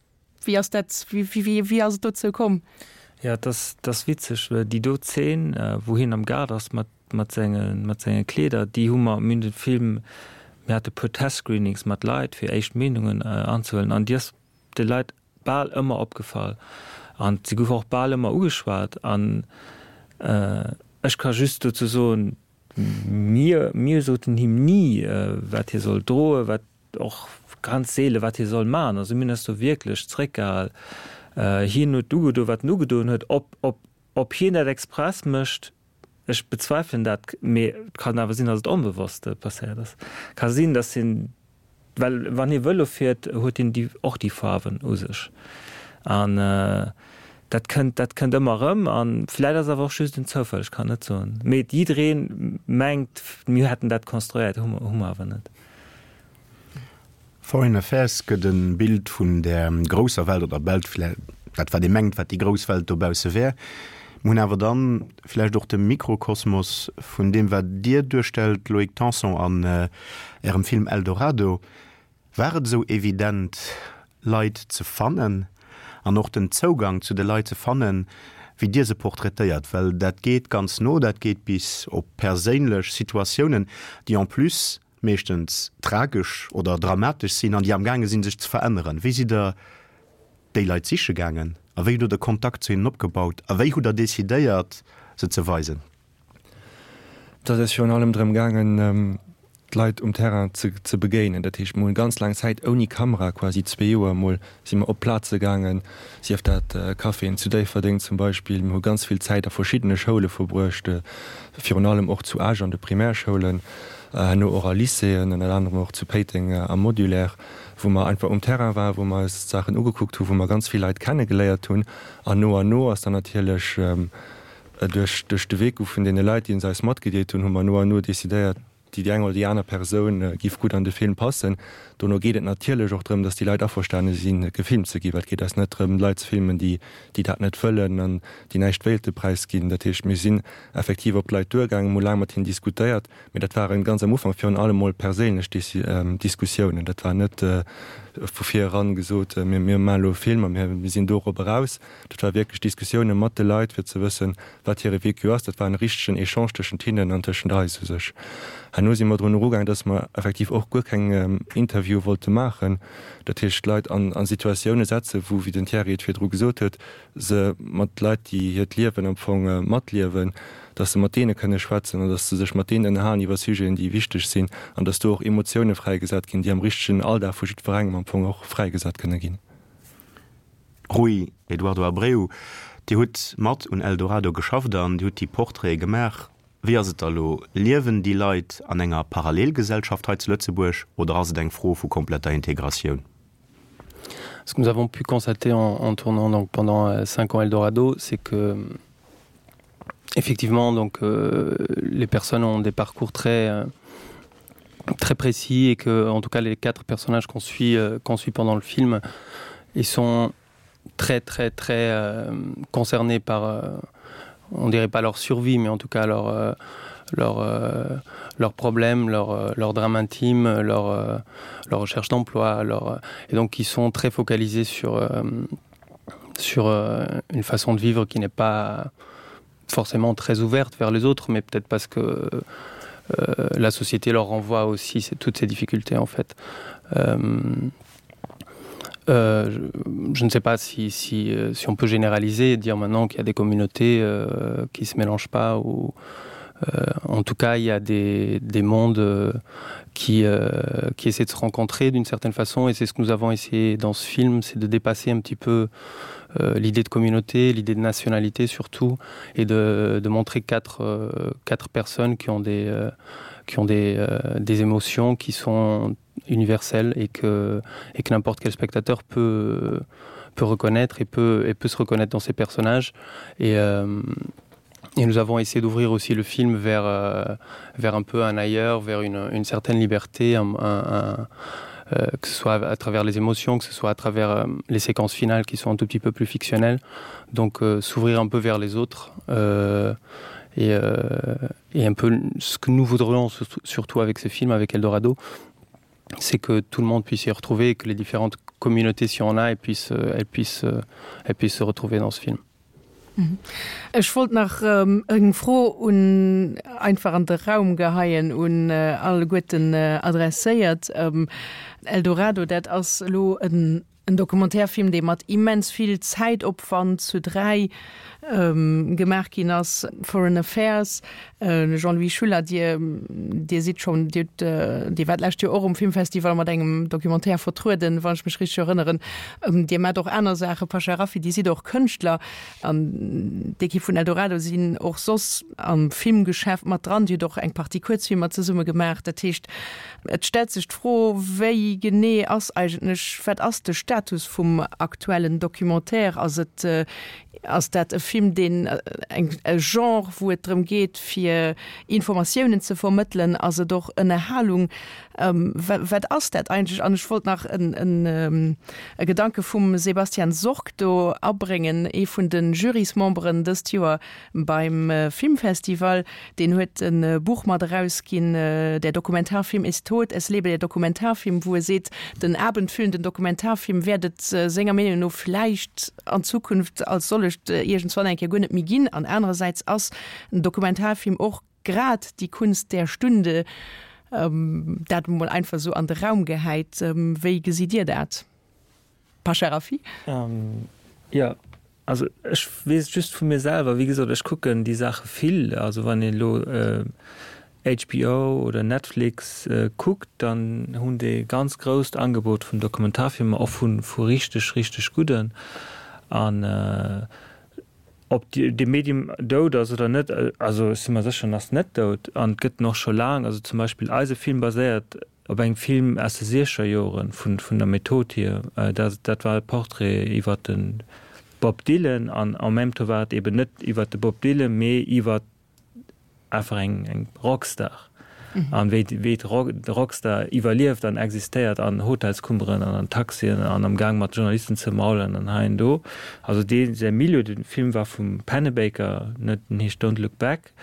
Wéi ass dat, wéi, wéi, wéi ass et dozou komm? Jo, et ass, et ass witzeg, well déi do Zeen, wou hien am Gaart ass mat, mat senge, mat senge Kleeder, déi hu mer, mir hunn de Film, mir hate puer Testscreenings mat Leit, fir éischt Meenungen anzehuelen, an déi ass de Leit bal ëmmer opgefall an se gouf och bal ëmmer ugeschwat. An ech ka just dozou soen, mir, mir soten him ni, wat hie soll droen, wat, Och ganz seele wat hie soll man. Also mir hunn eis do wierklech zréckgehal. Hien huet ugedoen, wat en ugedoen huet. Ob, ob, ob hien dat express mécht, ech bezweifelen dat, mee et kann awer sinn, datt et onbewosst passéiert ass. Ka sinn, datt hien, well wann hie Vëlo fiert, huet hien déi, och déi Faarwen u sech. An dat kënnt, dat kënnt ëmmer erëm. A vläit ass awer och just en Zoufall, ech kann net soen. Mee jidderee mengt, mir hätten dat konstruéiert, hu mer, hu mer awer net. Foreign Affairs gëtt e Bild vun där grousser Welt oder Welt, dat wat ee mengt, wat déi grouss Welt dobausse wär. Mir hunn awer dann vläicht och de Mikrokosmos vun deem, wat Dir duerstellt, Loïc Tanson, an Ärem Film Eldorado. War et esou evident, Leit ze fannen an och den Zougang zu de Leit ze fannen, wéi Dir se portraitéiert? Well dat geet ganz no, dat geet bis op perséinlech Situatiounen, déi en plus meeschtens tragesch oder dramatesch sinn an déi amgaange sinn, sech ze veränneren. Wéi sidd Der déi Leit siche gaangen a wéi hutt Der de Kontakt zu hinnen opgebaut a wéi hutt Der decidéiert, se ze weisen? Et ass eis virun allem drëm gaangen, d'Leit um Terrain ze begéinen. Dat heescht, mir hunn ganz laang Zäit ouni Kamera, quasi zwee Joer emol, si mer op Plaze gaangen, sief dat Caféen zu Déifferdeng zum Beispill. Mir hu ganz vill Zäit a verschiddene Schoule verbruecht, virun allem och zu Esch an de Primärschoulen, herno och a Lycéeën, ënner anerem och zu Péiteng am Modulaire, wou mer einfach um Terrain waren, wou mer eis d'Saachen ugekuckt hunn, wou mer ganz vill Leit kennegeléiert hunn. An no an no ass dann natierlech duerch de Vécu vun deene Leit, déi se eis matgedeelt hunn, hu mer no an no decidéiert, déi eng oder déi aner Persoun giff gutt an de Film passen. Dono geet et natierlech och drëm, datt déi Leit averstane sinn, gefilmt ze ginn, well et geet eis net drëm, Leit ze filmen, déi déi dat net wëllen an déi näischt wéilte präisginn. Dat heescht, mir sinn effektiv op d'Leit duergaangen, hu laang mat hinnen diskutéiert, mee dat waren ganz am Ufank virun allem mol perséinlech Diskussiounen. Dat war net vu vir eran gesot, mir mir maachen elo e Film a mir mir sinn dorop eraus. Dat war wierklech Diskussioune mat de Leit, fir ze wëssen, wat hire Vécu ass. Dat war en richtegen Echange tëschent hinnen an tëschent eis u sech. Herno si mer drun erugaang, dass mer effektiv och guer keng Interviewe wollte maachen. Dat heescht, d'Leit an a Situatioune setzen, wou, wéi den Thierry et virdru gesot huet, se mat Leit, déi hiert Liewen am Fong matliewen, dass se mat deene kënne schwätzen an dass se sech mat deenen ënnerhalen iwwer Sujeten, déi wichteg sinn an dass do och Emotioune fräigesat ginn, déi am richtegen Alldag vu jiddwerengem am Fong och fräigesat kënne ginn. Rui Eduardo Abreu, Dir hutt mat un Eldorado geschafft an Dir hutt déi Portraite gemaach. Wéi ass et da lo, liewen déi Leit an enger Parallelgesellschaft hei zu Lëtzebuerg oder ass et eng Fro vu kompletter Integratioun? Ce que nous avons pu constater en, en tournant donc pendant euh, cinq ans Eldorado, c'est que effectivement donc euh, les personnes ont des parcours très euh, très précis et que en tout cas les quatre personnages qu'on suit euh, qu'on suit pendant le film ils sont très très très euh, concernés par euh, on dirait pas leur survie mais en tout cas leur euh, leur euh, leurs problèmes leur euh, leur drame intime leur euh, leur recherche d'emploi leur euh, et donc ils sont très focalisés sur euh, sur euh, une façon de vivre qui n'est pas forcément très ouverte vers les autres mais peut-être parce que euh, la société leur renvoie aussi toutes ces difficultés en fait euh, euh, je, je ne sais pas si, si, euh, si on peut généraliser et dire maintenant qu'il y a des communautés euh, qui se mélangent pas ou euh, en tout cas il y a des, des mondes euh, qui, euh, qui essaient de se rencontrer d'une certaine façon et c'est ce que nous avons essayé dans ce film c'est de dépasser un petit peu euh, l'idée de communauté l'idée de nationalité surtout et de, de montrer quatre, euh, quatre personnes qui ont des euh, qui ont des, euh, des émotions qui sont universelles et que et que n'importe quel spectateur peut peut reconnaître et peut et peut se reconnaître dans ces personnages et euh, Et nous avons essayé d'ouvrir aussi le film vers, euh, vers un peu un ailleurs, vers une, une certaine liberté, un, un, un, euh, que ce soit à travers les émotions, que ce soit à travers euh, les séquences finales qui sont un tout petit peu plus fictionnelles. Donc euh, s'ouvrir un peu vers les autres euh, et, euh, et un peu ce que nous voudrions surtout avec ce film, avec Eldorado, c'est que tout le monde puisse y retrouver et que les différentes communautés si on a et puissent, euh, elles puissent, euh, elles puissent se retrouver dans ce film. Ech wollt nach eng Fro un einfach an de Raum geheien, un alleguerten adresséiert. Eldorado, dat ass elo en Documentairefilm, dee mat immens vill Zäitopwand zu 3 gemaach ginn ass. Foreign Affairs, Jean-Louis Schuller, Dir, Dir sidd schonn, Dir hutt, Dir waart d'lescht Joer och um Filmfestival mat engem Documentaire vertrueden, wann ech mech richteg erënneren. Dir maacht och aner Saachen, Pasha Rafiy, Dir sidd och Kënschtler an d'Ekipp vun Eldorado sinn och soss am Filmgeschäft mat dran. Dir hutt och eng Partie Kuerzfilmer zesumme gemaach. Dat heescht, et stellt sech d'Fro, wéi genee ass eigentlech, wat ass de Status vum aktuellen Documentaire? Ass et Ass dat e Film, deen eng e Genre, wou et drëm geet, fir Informatiounen ze vermëttelen? Ass et och Ënnerhalung? Wat ass dat eigentlech? An ech wollt nach en en e Gedanke vum Sebastian Sorg do abréngen, ee vun de Jurysmemberen dëst Joer beim Filmfestival. Deen huet e Buch mat erausginn, Der Dokumentarfilm ist tot, es lebe der Dokumentarfilm, wou e seet, den abendfüllenden Dokumentarfilm wäert et senger Meenung no vläicht an Zukunft als sollecht iergendswann eng Kéier guer net méi ginn. An anerersäits ass en Dokumentarfilm och grad die Kunst der Stunde. Dat emol einfach esou an de Raum gehäit. Wéi gesitt Dir dat, Pasha Rafiy? Jo, Also ech weess et just vu mir selwer, wéi gesot, ech kucken déi Saache vill. Also wann een elo HBO oder Netflix kuckt, dann hunn déi e ganz grousst Angebot vun Dokumentarfilmer, och vu vu richteg, richteg gudden. An ob dee Medium dout ass oder net, also ech si mer sécher, en ass net dout an et gëtt en och scho laang. Also zum Beispill eise Film baséiert Op engem Film aus de siechzeger Joren, vun vun der Method hier, dat dat war e Portrait iwwer de Bob Dylan an en même temps war et eben net iwwer de Bob Dylan, mee iwwer einfach eng eng Rockstar. An wéi wéi de Rockstar iwwerlieft an existéiert an Hotelskummeren an an Taxien an am Gaang mat Journalisten ze maulen an hei an do. Also dee säi Milieu, de Film war vum Pennebaker, net, den heescht Don't Look Back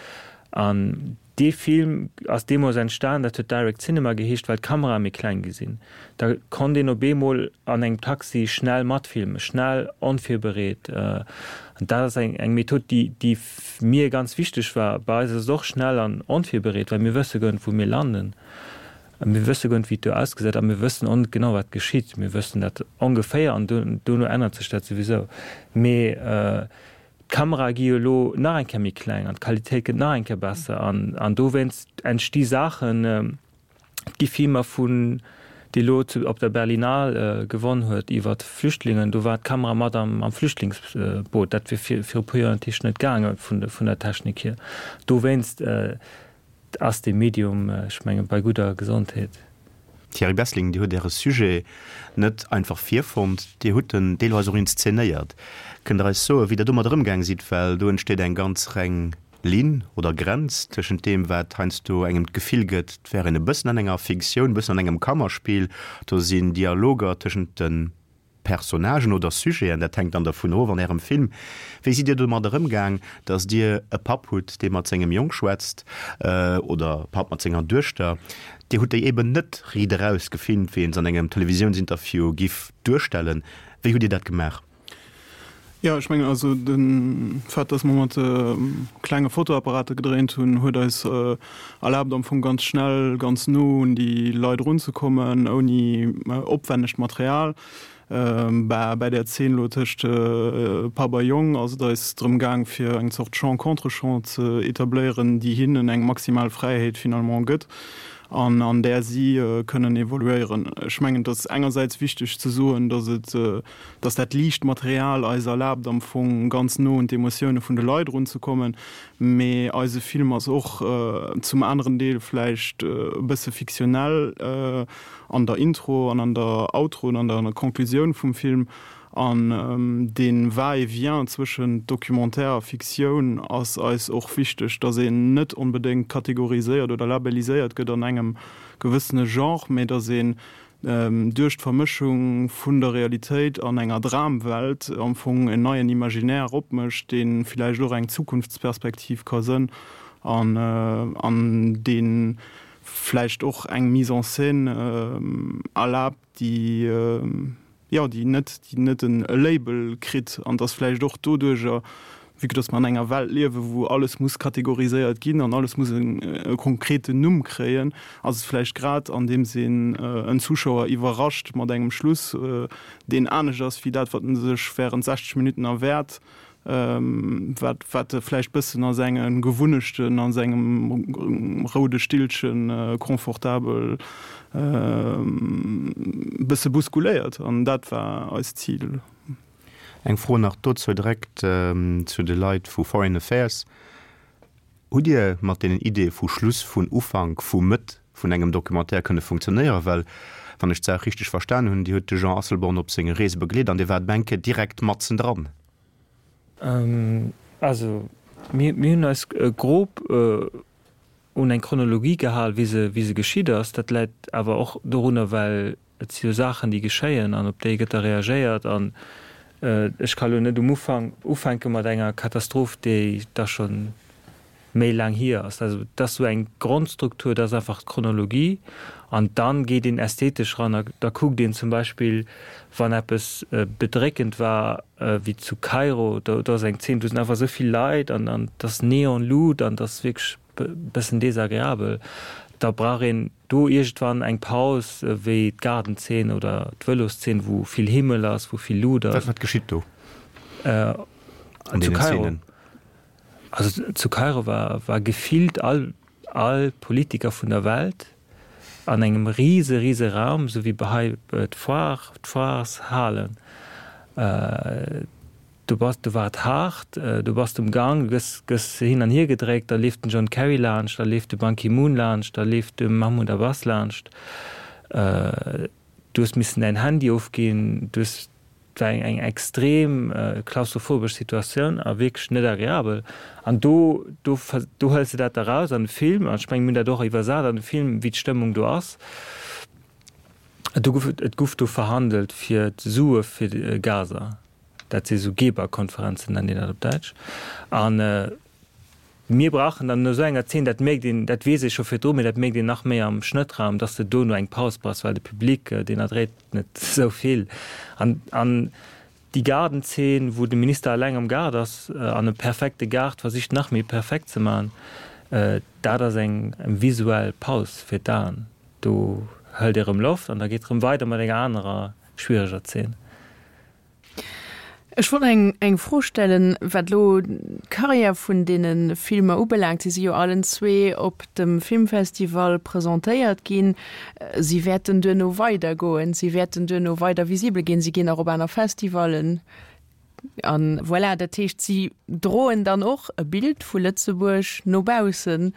an Dee Film ass deemools entstan, dat huet Direct Cinema geheescht, well d'Kamerae méi kleng gi sinn. Da konnt een op eemol an engem Taxi schnell matfilmen, schnell, onvirbereet. An dat ass eng eng Method, déi déi mir ganz wichteg war. Bei eis ass et och schnell an onvirbereet, well mir wësse guer net, wou mir landen. Mir wësse guer net, wéi et do ausgesäit a mir wëssen och net genau, wat geschitt. Mir wëssen dat ongeféier an dono ännert sech dat souwisou. Mee D'Kamerae gi jo elo nach eng Kéier méi kleng an d'Qualitéit gëtt nach eng Kéier besser an an dowéinst entsti Saachen. Et gi Filmer vun, déi elo zu op der Berlinale gewonn huet iwwer Flüchtlingen, do war d'Kamera mat am am Flüchtlingsboot. Dat wier vir viru puer Joer natierlech net gaange vun vun der Technik hier. Dowéinst ass dee Medium, ech mengen, bei gudder Gesondheet. Thierry Bessling, Dir hutt Äre Sujet net einfach virfonnt, Dir hutt en deelweis och inszenéiert. Kënnt Der eis soen, wéi Der domat ëmgaang sidd? Well do entsteet eng ganz reng Linn oder Grenz tëschent deem, wat heiansdo engem d'Gefill gëtt, et wär een e bëssen an enger Fiktioun, e bëssen an engem Kammerspill, do sinn Dialoger tëschent de Personnagen oder Sujeten, dat hänkt dann dervun of an Ärem Film. Wéi sidd Dir domadder ëmgaang, datt Dir e Papp hutt, dee mat sengem Jong schwätzt, oder e Papp mat senger Duechter? Dir hutt déi eben net riit eraus gefilmt, wéi een se an engem Televisiounsinterview giff duerstellen. Wéi hutt Dir dat gemaach? Jo, ech mengen also de Fait, datt mer mat klenge Fotoapparate gedréint hunn, huet eis erlaabt am Fong ganz schnell, ganz no un déi Leit erunzekommen, ouni opwännegt Material. Bah, bäi där Zeen elo tëscht Papp a Jong ass et eis drëm gaang, fir eng Zort Champ-contre-champ ze etabléieren, déi hinnen eng maximal Fräiheet finalement gëtt an an där si kënnen evoluéieren. Ech mengen, et ass engersäits wichteg ze soen, datt et dass dat liicht Material eis erlaabt am Fong ganz no un d'Emotioune vun de Leit erunzekommen, mee eise Film ass och zum aneren Deel vläicht e bësse fiktionell an der Intro an an der Outro an an der Conclusioun vum Film. An dee Va-et-vient zwëschent Documentaire a Fiktioun ass eis och wichteg, dass een net onbedéngt kategoriséiert oder labelliséiert gëtt an engem gewëssene Genre, mee dass een duerch d'Vermëschung vun der Realitéit an enger Dramwelt am Fong en neien Imaginaire opmécht, dee villäicht och eng Zukunftsperspektiv ka sënn an an dee vläicht och eng Mise en scène erlaabt, déi jo, déi net, déi net en Label kritt an dass vläicht och doduerjer, vue que dass mer an enger Welt liewen, wou alles muss kategoriséiert ginn an alles muss e konkreten Numm kréien, ass et vläicht grad andeems een en Zuschauer iwwerrascht mat engem Schluss, deen anescht ass wéi dat, wat en sech während 60 Minutten erwäert, wat wat e vläicht bëssen a senge Gewunnechten, a sengem roude Stillche confortabel bësse bousculéiert. An dat war eist Zil. Eng Fro nach dozou direkt zu de Leit vu Foreign Affairs. Hutt Dir mat deenen Ideeë vu Schluss, vun Ufank, vu Mëtt vun engem Documentaire kënne funktionéieren? Well, wann ech d'Saach richteg verstan hunn, Dir hutt de Jean Asselborn op senge Reese begleet an Dir waart eng Kéier direkt matzendran. Also, mir hunn eis grob un eng Chronologie gehal, wéi se, wéi se geschitt ass. Dat läit awer och dorunner, well et si jo Saachen, déi geschéien an op déi gëtt da reagéiert. An ech ka lo net um Ufank ufänke mat enger Katastroph, déi da scho méi laang hier ass. Also et ass esou eng Grondstruktur, dat ass einfach d'Chronologie. An dann geet een ästhetesch ran a da kuckt een zum Beispill, wann eppes bedréckend war, wéi zu Kairo, do ass eng Zeen, do sinn einfach esou vill Leit an an et ass Neonlut an et ass wierklech e bëssen desagreabel. Da brauch een do iergendwann eng Paus, wéi d'Gaardenzeen oder d'Vëloszeen, wou vill Himmel ass, wou vill Lut ass. Wat geschitt do an deenen Zeenen? Also zu Kairo war war gefillt all all Politiker vun der Welt an engem rise rise Raum, esou wéi hei d'Foire, d'Foireshalen. Du bass, do war et haart, du bass um Gang, du gëss gëss hin an hier gedréckt, da leeft den John Kerry laanscht, da leeft de Ban Ki-moon laanscht, da leeft de Mahmoud Abbas laanscht. Du hues missen däin Handy ofginn, du hues. Et war eng extrem klaustrophobesch Situatioun a wierklech net agreabel. An do, do, do hëls de dat da raus an de Film. An ech mengen, mir hunn dat och iwwersat an de Film, wéi d'Stëmmung do ass. Do gouf, et gouf do verhandelt fir d'Sue fir Gaza. Dat si sou Geberkonferenzen, nennt een dat op Däitsch. An mir brauchen dann no esou enger Zeen, dat mierkt een, dat weess ee scho virdru, mee dat mierkt een nach méi am Schnëttraum, dass de dono eng Paus brauchs, well de Public, deen erdréit net esou vill. An, an déi Gaardenzeen, wou de Minister eleng am Gaart ass an e perfekte Gaart versicht nach méi perfekt ze maachen, dat ass eng visuell Paus fir d'Aen. Do hëlt ee rëm Loft an da geet rëm weider mat enger anerer schwiereger Zeen. Ech wollt eng eng Fro stellen, wat elo d'Carrière vun deene Filmer ubelaangt. Si si jo allen zwee op dem Filmfestival presentéiert ginn. Si wäerten duerno weidergoen, si wäerten duerno weider visibel ginn, si ginn och op aner Festivallen. A voilà, dat heescht, si droen dann och e Bild vu Lëtzebuerg no baussen.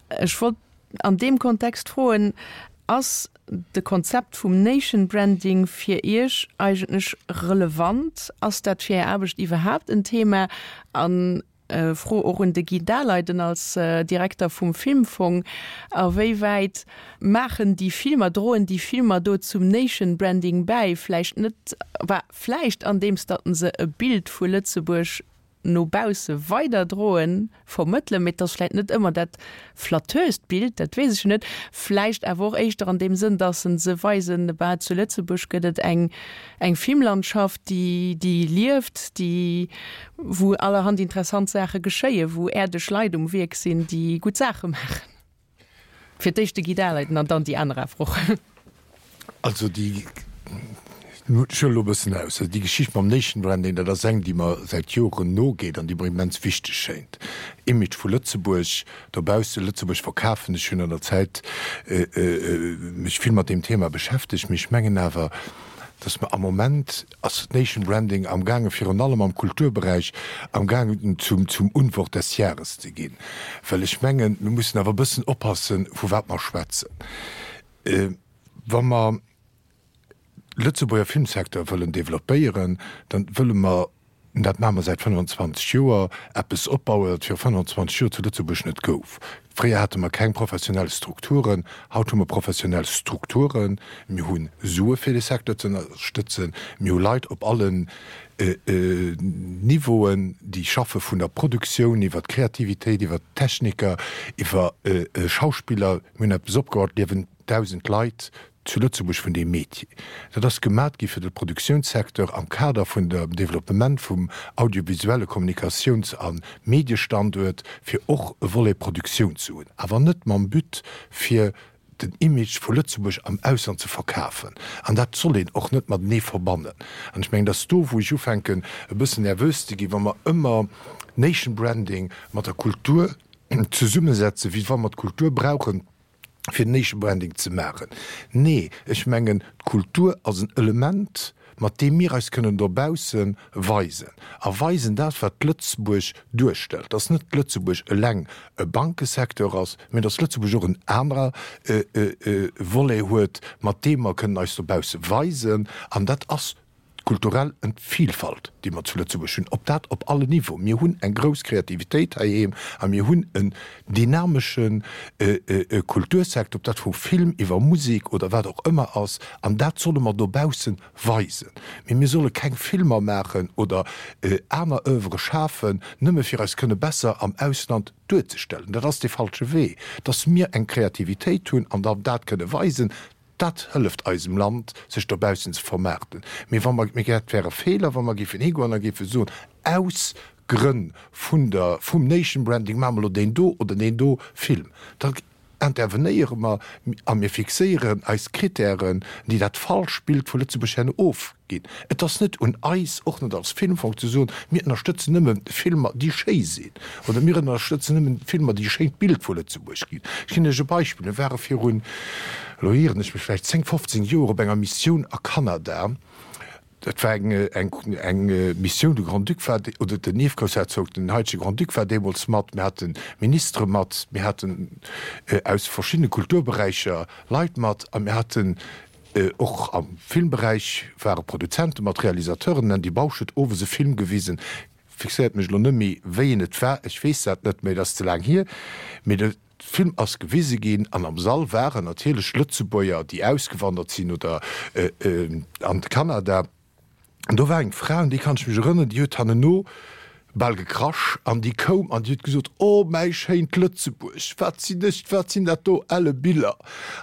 Ech wollt an deem Kontext froen, Ass de Konzept vum Nation Branding fir Iech eigentlech relevant? Ass dat fir Är Aarbecht iwwerhaapt en Thema? An Fro och un de Guy Daleiden als Direkter vum Filmfong, A wéi wäit maachen déi Filmer, droen déi Filmer do zum Nation Branding bäi? Vläicht net, bah, vläicht andeems datt se e Bild vu Lëtzebuerg no bausse weiderdroen, vermëttelen, mee et ass vläicht net ëmmer dat flatteurst Bild, dat weess ech jo net, vläicht awer och éischter an deem Sënn, dass se se weisen, bah, zu Lëtzebuerg gëtt et eng, eng Filmlandschaft, déi, déi lieft, déi, wou allerhand interessant Saache geschéien, wou äerdeg Leit um Wierk sinn, déi gutt Saache maachen. Fir d'éischt de Guy Daleiden an dann déi aner awer och. Also déi, ech huelen elo e bëssen aus, also déi Geschicht mam Nation Branding, dat ass eng, déi mer säit Joren nogeet an déi mer immens wichteg schéint. Image vu Lëtzebuerg dobausse, Lëtzebuerg verkafen. Ech hunn an der Zäit mech vill mat deem Thema beschäftegt, mee ech mengen awer, datt mer am Moment, ass Nation Branding am gaangen, virun allem am Kulturberäich, am gaangen zum, zum Unwort des Jahres ze ginn. Well ech mengen, mir mussen awer e bëssen oppassen, vu wat mer schwätzen. Wa mer Lëtzebuerger Filmsecteur wëllen développéieren, dann wëlle mer, dat maache mer säit 25 Joer, eppes opbauen, wat viru 25 Joer zu Lëtzebuerg net gouf. Fréier hate mer keng professionell Strukturen, haut hu mer professionell Strukturen. Mir hu Sue fir de Secteur ze ënnerstëtzen, mir hu Leit op allen Niveauen, déi schaffe vun der Produktioun iwwer d'Kreativitéit, iwwer d'Techniker, iwwer Schauspiller. Mir hunn eppes opgebaut, et liewen 1.000 Leit zu Lëtzebuerg vun deem Métier. Dat ass gemat gi fir de Produktiounssecteur am Kader vun dem Développement vum audiovisuelle Kommunikatiouns a Mediestanduert, fir och e Volet Produktioun ze hunn, awer net mam But fir den Image vu Lëtzebuerg am Ausland ze verkafen. An dat soll een och net matenee verbannen. An ech mengen, dass do wou ech ufänken e bëssen nervös ze ginn, wa mer ëmmer Nation Branding mat der Kultur zesummesetzen, wéi wa mer d'Kultur brauchen, fir Nation Branding ze maachen. Nee, ech mengen, d'Kultur ass en Element, mat deem mir eis kënnen dobausse weisen a weisen dat, wat Lëtzebuerg duerstellt, dass net Lëtzebuerg eleng e Bankesecteur ass, mä dass Lëtzebuerg och en anerer Volet huet, mat deem mer kënnen eis dobausse weisen. An dat ass D'kulturell Vielfalt, déi mer zu Lëtzebuerg hunn, op dat op allen Niveauen. Mir hunn eng grouss Kreativitéit heiheem a mir hunn en dynamesche Kultursecteur, ob dat vu Film iwwer Musek oder wat och ëmmer ass, an dat solle mer dobausse weisen. Mee mir solle keng Filmer maachen oder aner Oeuvre schafen, nëmme fir eis kënne besser am Ausland duerzestellen. Dat ass dee falsche Wee. Dass mir eng Kreativitéit hunn an dann dat kënne weisen, Dat hëlleft eisem Land, sech dobaussen ze vermaarten. Mee wa mer, mee dat wär e Feeler, wa mer géifen higoen a géife soen, aus Grënn vun der, vum Nation Branding maache mer elo deen do oder deen do Film. Da intervenéiere mer a mir fixéieren eis Kritären, déi dat falscht Bild vu Lëtzebuerg herno ofginn. Et ass net un eis, och net als Filmfong, ze soen, mir ënnerstëtzen nëmme Filmer, déi schéi sinn, oder mir ënnerstëtzen nëmmen Filmer, déi e schéint Bild vu Lëtzebuerg ginn. Ech ginn Iech e Beispill, Mir ware virun, elo ieren ech mech vläicht, 10, 15 Joer op enger Missioun a Kanada. Dat war eng, eng, eng Missioun, de Grand-Duc war, oder den Ierfgroussherzog, den haitege Grand-Duc war deemools mat, mir hate Ministere mat, mir haten aus verschiddene Kulturberäicher Leit mat a mir haten. Och am Filmberäich ware Produzente mat Realisateuren. Den Andy Bausch huet owes e Film gewisen, fixéiert mech elo net méi, wéi en et war, ech weess dat net méi, et ass ze laang hier, mee de Film ass gewise ginn an am Sall waren natierlech Lëtzebuerger, déi ausgewandert sinn oder an de Kanada. An do war eng Fra, un déi kann ech mech erënneren, déi huet hanneno bal gekrasch an déi koum an déi huet gesot, Oh, mäi schéint Lëtzebuerg, wat sinn ech, wat sinn dat do elle Biller!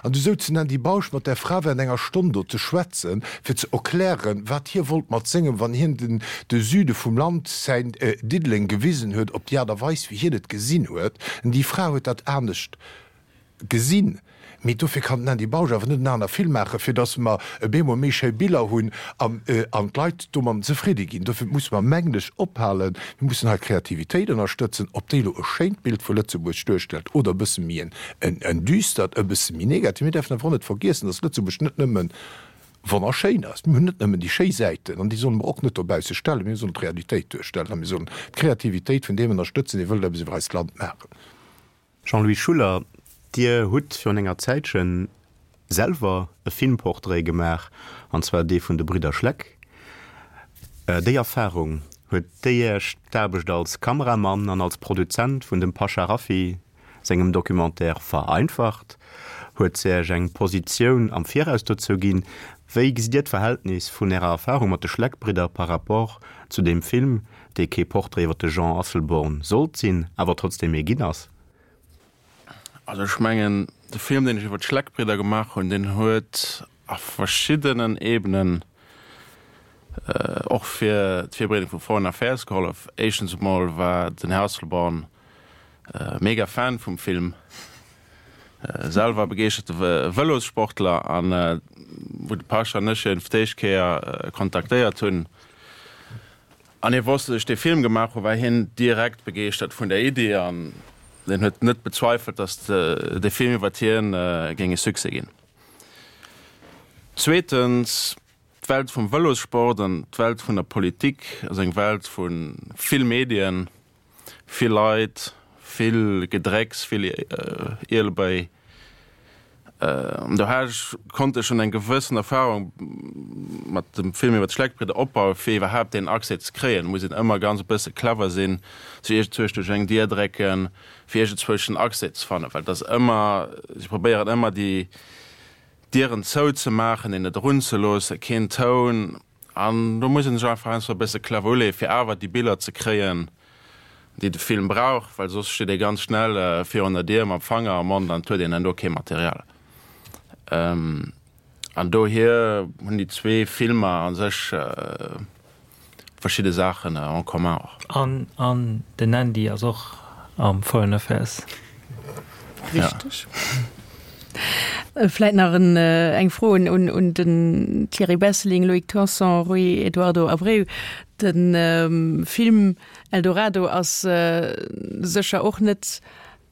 An du souz den Andy Bausch mat där Fra während enger Stonn do ze schwätzen, fir ze erklären, wat hie wollt mat sengem, wann hien den de Süde vum Land, säin Diddeleng gewisen huet, op déi Aart a Weis, wéi hien et gesinn huet. An déi Fra huet dat anescht gesinn. Mee dofir kann den Andy Bausch awer net en aner Film maachen, fir datt mer e bemol méi schéi Biller hunn an d'Leit domadden zefridde ginn. Dofir musse mer, mengen ech, ophalen, mir mussen hei d'Kreativitéit ënnerstëtzen, ob déi elo e schéint Bild vu Lëtzebuerg duerstellt oder e bësse méi en düstert, e bësse méi negativ. Mir däerfen awer och net vergiessen, datt Lëtzebuerg net nëmme wonnerschéin ass. Mir hunn net nëmmen déi schéi Säiten an déi solle mer och net dobausse stellen. Mir sollen d'Realitéit duerstellen a mir sollen d'Kreativitéit vun deem ënnerstëtzen, dee wëllt eppes iwwer eist Land maachen. Jean-Louis Schuller, Dir hutt virun enger Zäitche selwer e Filmportrait gemaach, an zwar dee vun de Bridder Schleck. Déi Erfarung, huet déi Iech d'Aarbecht als Kameramann an als Produzent vun dem Pasha Rafiy sengem Documentaire vereinfacht? Huet se Iech eng Positioun am Viraus dozou ginn? Wéi gesitt Dir d'Verhältnis vun Ärer Erfarung mat de Schleck-Bridder par rapport zu deem Film, dee kee Portrait iwwer de Jean Asselborn sollt sinn, awer trotzdem ee ginn ass? Also ech mengen, de Film, deen ech iwwer d'Schleck-Bridder gemaach hunn, deen huet a verschiddenen Ebenen och fir d'Virbereedung vu Foreign Affairs gehollef. Éischtens emol war den Här Asselborn mega Fan vum Film, selwer begeeschterte Vëlossportler, an wou de Pasha an ech hien fir d'éischt Kéier kontaktéiert hunn, An hie wosst, datt ech dee Film gemaach hu, war hien direkt begeeschtert vun der Iddi an hien huet net bezweifelt, datt dee Film iwwert hien géing e Succès ginn. Zweetens, d'Welt vum Vëlossport an d'Welt vun der Politik ass eng Welt vu vill Medien, Vill Leit, vill Gedrécks, vill Ielebéi. An do hat ech, konnt ech schonn eng gewëssen Erfahrung mat dem Film iwwer d'Schleckbridder opbauen, fir iwwerhaapt deen Accès ze kréien. Et muss een ëmmer ganz e bësse clever sinn, sech iergendzwousch duerch eng Dier drécken, fir iergendzwousch den Accès ze fannen, well et ass ëmmer, si probéieren ëmmer déi Dieren zouzemaachen, een net erunzeloossen, keen Toun. An do muss een sech einfach heiansdo e bësse clever uleeën, fir awer déi Biller ze kréien, déi de Film brauch, well soss steet ee ganz schnell virun der Dier mam Fanger am Mond an et huet een dann do kee Material. An dohier hunn déi zwee Filmer a sech verschidde Saachen en commun och. An an den Andy ass och am Foreign Affairs. Richteg. Vläit nach en eng Fro un un den Thierry Besseling, Loïc Tanson, Rui Eduardo Abreu. De Film Eldorado ass sécher och net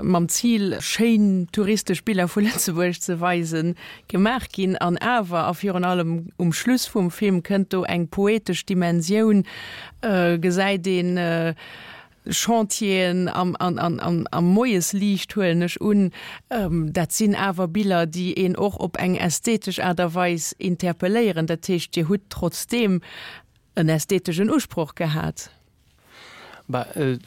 mam Zil, schéin touristesch Biller vu Lëtzebuerg ze weisen, gemaach ginn. An awer, a virun allem um Schluss vum Film, kënnt do eng poetesch Dimensioun, gesäit een Chantieren am, am Moiesliicht, huelen ech un. Dat sinn awer Biller, déi een och op eng ästhetesch Aart a Weis interpelléieren. Dat heescht, Dir hutt trotzdeem en ästheteschen Usproch gehat. Bah, euh,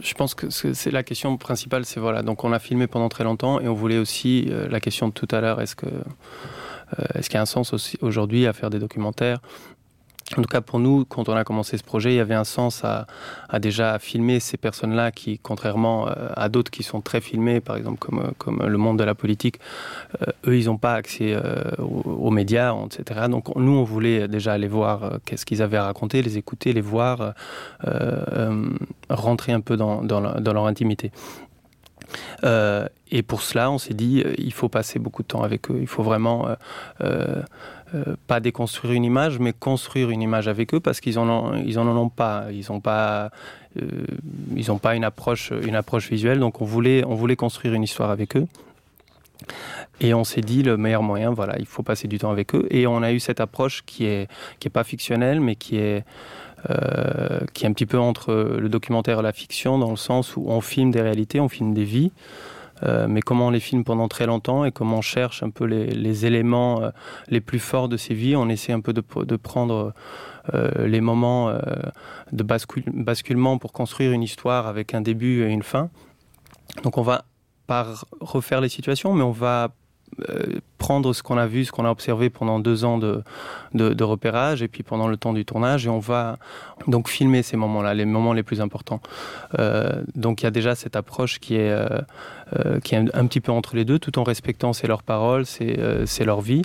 je pense que c'est la question principale c'est voilà donc on a filmé pendant très longtemps et on voulait aussi euh, la question de tout à l'heure est-ce que euh, est-ce qu'il y a un sens aussi aujourd'hui à faire des documentaires En tout cas pour nous, quand on a commencé ce projet, il y avait un sens à, à déjà filmer ces personnes-là qui, contrairement euh, à d'autres qui sont très filmés, par exemple comme, euh, comme le monde de la politique, euh, eux, ils n'ont pas accès euh, aux, aux médias, etc. Donc nous, on voulait déjà aller voir euh, qu'est-ce qu'ils avaient à raconter, les écouter, les voir, euh, euh, rentrer un peu dans, dans, la, dans leur intimité. Euh, et pour cela, on s'est dit euh, il faut passer beaucoup de temps avec eux, il faut vraiment euh, euh, euh, pas déconstruire une image, mais construire une image avec eux parce qu'ils en ont, ils en, en ont pas, ils n'ont pas, euh, ils ont pas une approche, une approche visuelle, donc on voulait, on voulait construire une histoire avec eux. Et on s'est dit le meilleur moyen voilà il faut passer du temps avec eux et on a eu cette approche qui est qui est pas fictionnelle mais qui est euh, qui est un petit peu entre le documentaire et la fiction dans le sens où on filme des réalités on filme des vies. Euh, mais comment on les filme pendant très longtemps et comment on cherche un peu les, les éléments euh, les plus forts de ces vies, on essaie un peu de, de prendre euh, les moments euh, de bascule, basculement pour construire une histoire avec un début et une fin. Donc on va pas refaire les situations, mais on va euh, prendre ce qu'on a vu, ce qu'on a observé pendant deux ans de, de, de repérage et puis pendant le temps du tournage et on va donc filmer ces moments là, les moments les plus importants. Euh, donc il y a déjà cette approche qui est, euh, euh, qui est un, un petit peu entre les deux tout en respectant c'est leurs paroles, c'est euh, leur vie.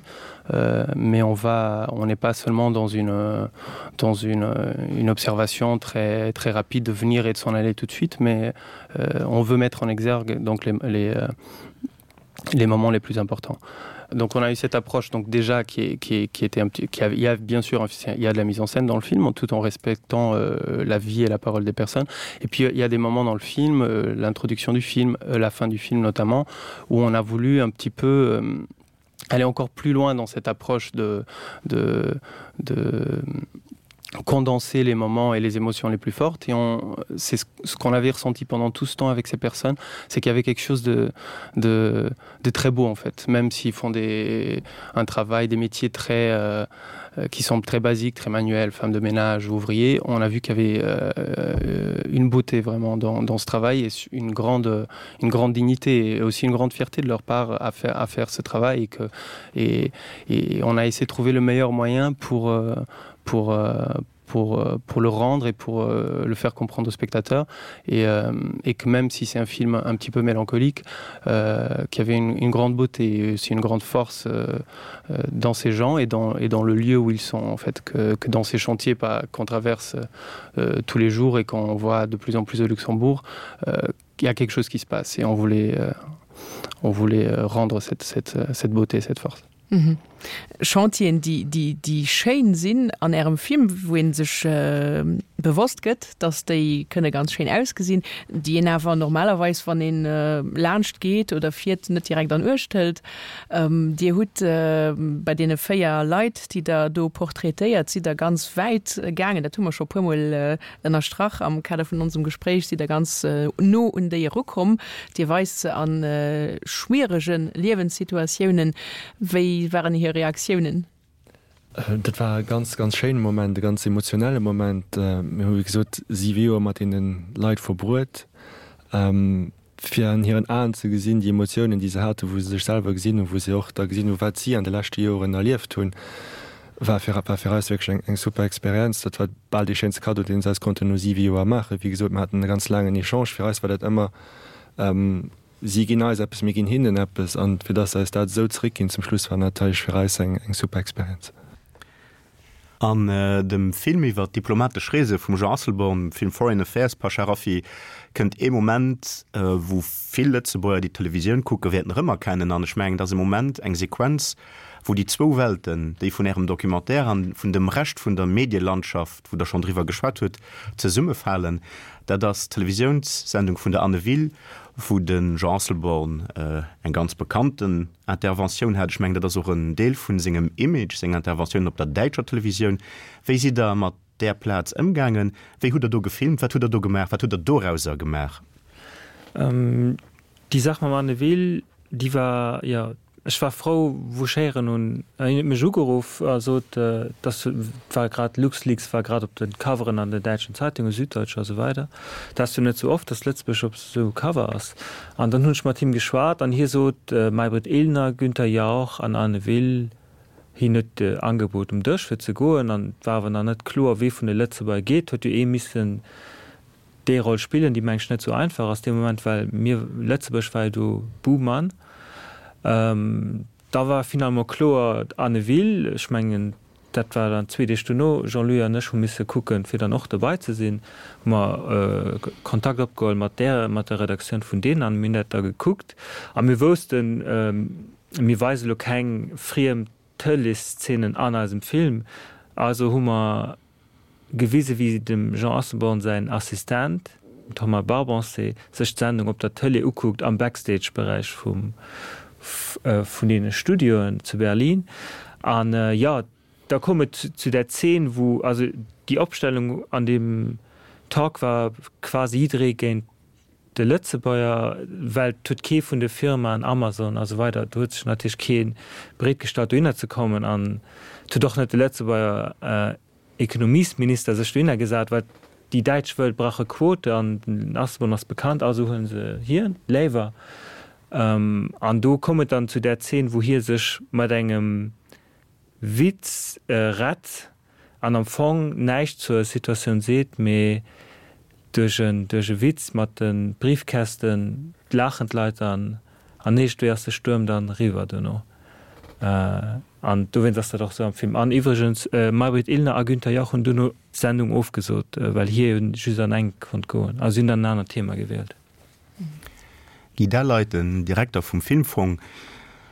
Euh, mais on va on n'est pas seulement dans une dans une, une observation très très rapide de venir et de s'en aller tout de suite, mais euh, on veut mettre en exergue donc les, les, euh, les moments les plus importants. Donc on a eu cette approche donc déjà qui, est, qui, est, qui était un petit qui a, il y a bien sûr il y a de la mise en scène dans le film tout en respectant euh, la vie et la parole des personnes et puis il y a des moments dans le film euh, l'introduction du film euh, la fin du film notamment où on a voulu un petit peu euh, aller encore plus loin dans cette approche de de, de condenser les moments et les émotions les plus fortes et on c'est ce qu'on avait ressenti pendant tout ce temps avec ces personnes c'est qu'il y avait quelque chose de, de de très beau en fait même s'ils font des un travail des métiers très euh, euh qui semblent très basiques très manuels femmes de ménage ouvriers on a vu qu'il y avait euh, une beauté vraiment dans, dans ce travail et une grande une grande dignité et aussi une grande fierté de leur part à faire à faire ce travail et que et, et on a essayé de trouver le meilleur moyen pour euh, pour, euh, pour, euh, pour le rendre et pour euh, le faire comprendre aux spectateurs et, euh, et que même si c'est un film un petit peu mélancolique euh, qui avait une, une grande beauté aussi une grande force euh, euh, dans ces gens et dans, et dans le lieu où ils sont en fait que, que dans ces chantiers pas qu'on traverse euh, tous les jours et qu'on voit de plus en plus au Luxembourg euh, il y a quelque chose qui se passe et on voulait euh, on voulait euh, rendre cette, cette, cette beauté cette force. Mhm. Chantieren, déi, déi, déi schéin sinn an Ärem Film, wou ee sech bewosst gëtt, dass déi kënne ganz schéin ausgesinn, déi een awer normalerweis, wann een laanscht geet oder fiert, net direkt an Uecht hëlt. Dir hutt bei deene 4 Leit, déi Der do portraitéiert, sidd Der ganz wäit gaangen, dat hu mer scho e puermol ënnerstrach am Kader vun onsem Gespréich, sidd Der ganz no un déi erukomm. Dir weist se a schwierege Liewenssituatiounen. Wéi waren hir Reaktiounen? Dat war e ganz, ganz schéine Moment, e ganz emotionelle Moment. Mir hu wéi gesot siwe Joer mat deene Leit verbruet. Fir an hiren Aen ze gesinn, déi Emotiounen, déi se haten, wou se sech selwer gesinn hunn, wou se och da gesinn hunn, wat si an de leschte Joren erlieft hunn, war fir war fir eis wierklech eng eng super Experienz. Dat war bal dee schéinste Kaddo, deen se eis konnten no siwe Joer maachen. Wéi gesot, mir haten e ganz laangen Echange. Fir eis war dat ëmmer, si ginn eis eppes, mir ginn hinnen eppes. An fir dass se eis dat esou zeréckginn zum Schluss, war natierlech fir eis eng eng super Experienz. An dem Film iwwer d'diplomatesch Reese vum Jean Asselborn, dem Film Foreign Affairs, Pasha Rafiy, kënnt ee Moment, wou vill Lëtzebuerger, déi d'Televisioun kucken, wäerten erëmerkennen. An ech mengen, et ass e Moment, eng Sequenz, wou déi zwou Welten, déi vun Ärem Documentaire an vun dem Rescht vun der Medielandschaft, wou Der schonn driwwer geschwat hutt, zesummefalen. Dat ass d'Televisiounssendung vun der Anne Will, wou de Jean Asselborn eng ganz bekannten Interventioun hat. Ech mengen, dat ass och en Deel vu sengem Image, seng Interventiounen op der däitscher Televisioun. Wéi sidd Der mat där Plaz ëmgaangen? Wéi hutt Der do gefilmt? Wat hutt Der do gemaach? Wat hutt Der dorauser gemaach? Déi Saach mam Anne Will, déi war, jo, ech war frou, wou ech héieren hunn, hien huet mech ugeruff a sot, dass, et war grad, LuxLeaks war grad op de Coveren an den däitschen Zeitungen, Süddeutsche a sou weider. Dat ass jo net sou oft, dass Lëtzebuerg op sou Cover ass. An dann hunn ech mat him geschwat an hie sot, Maybrit Illner, Günther Jauch an Anne Will, hien huet Angebot um Dësch fir ze goen an et war awer nach net kloer, wee vun de Lëtzebuerger geet. Huet jo ee missen déi Roll spillen, déi meng ech net sou einfach ass dee Moment, well mir, Lëtzebuerg war jo do Buhmann. Da war finalement kloer, Anne Will, ech mengen, dat war dann zwee Deeg dono, Jean-Louis an ech hu misse kucken, fir dann och dobei ze sinn, hu mer Kontakt opgeholl mat där, mat der Redaktioun vun deenen an mir hunn dat da gekuckt a mir woussten, mir weise lo keng friem Tëleeszenen an eisem Film, also hu mer gewise wéi dem Jean Asselborn säin Assistent, den Thomas Barbancé, sech d'Sendung op der Tëlee ukuckt am Backstage-Beräich vum vun deene Studioen zu Berlin. An jo, da koum et zu där Zeen, wou, also déi Opstellung an deem Talk war quasi jidderee géint. De Lëtzebuerger, well et huet kee vun de Firmaen, Amazon a sou weider, do huet sech natierlech kee bereet gestallt dohinner ze kommen an et huet och net de Lëtzebuerger Ekonomiesminister sech dohinner gesat, well déi Däitsch wëll brauche Quote an den Asselborn ass bekannt, also huele se hien léiwer. An do koum et dann zu där Zeen, wou hie sech mat engem Witz rett an am Fong näischt zur Situatioun seet, mee duerch en duerch e Witz mat de Briefkästen laachen d'Leit dann an iergendwéi ass de Stuerm dann eriwwer duerno. An dowéinst ass dat och sou am Film. An iwwregens, Maybrit Illner a Günther Jauch hunn duerno d'Sendung ofgesot, well hie jo just an eng konnt goen. Also si hunn dann en anert Thema gewielt. Guy Delleit, den Direkter vum Filmfong,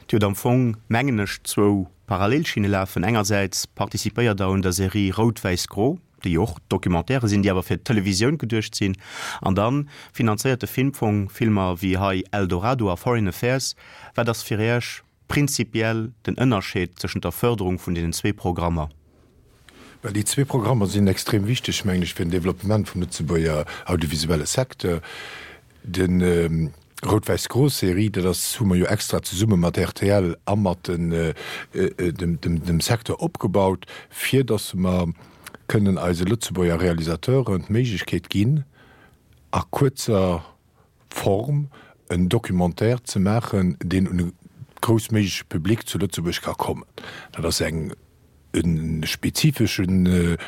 Dir hutt am Fong, mengen ech, zwou Parallelschinne lafen. Engersäits participéiert Der un der Serie Rout-Wäiss-Gro, déi jo och Documentairë sinn, déi awer fir d'Televisioun geduecht sinn. An da finanzéiert de Filmfong Filmer wéi hei Eldorado a Foreign Affairs. Wat ass fir Iech prinzipiell den Ënnerscheed tëschent der Fërderung vun deenen zwee Programmer? Well déi zwee Programmer sinn extrem wichteg, mengen ech, fir den Développement vum Lëtzebuerger audiovisuelle Secteur. De Rout-Wäiss-Gro-Serie, dat ass, hu mer jo extra zesumme mat rtl a mat dem Secteur opgebaut, fir datt mer kënnen eise Lëtzebuerger Realisateuren d'Méiglechkeet ginn, a kuerzer Form en Documentaire ze maachen, deen un e groussméigleche Public zu Lëtzebuerg ka kommen. Dat ass eng e spezifesche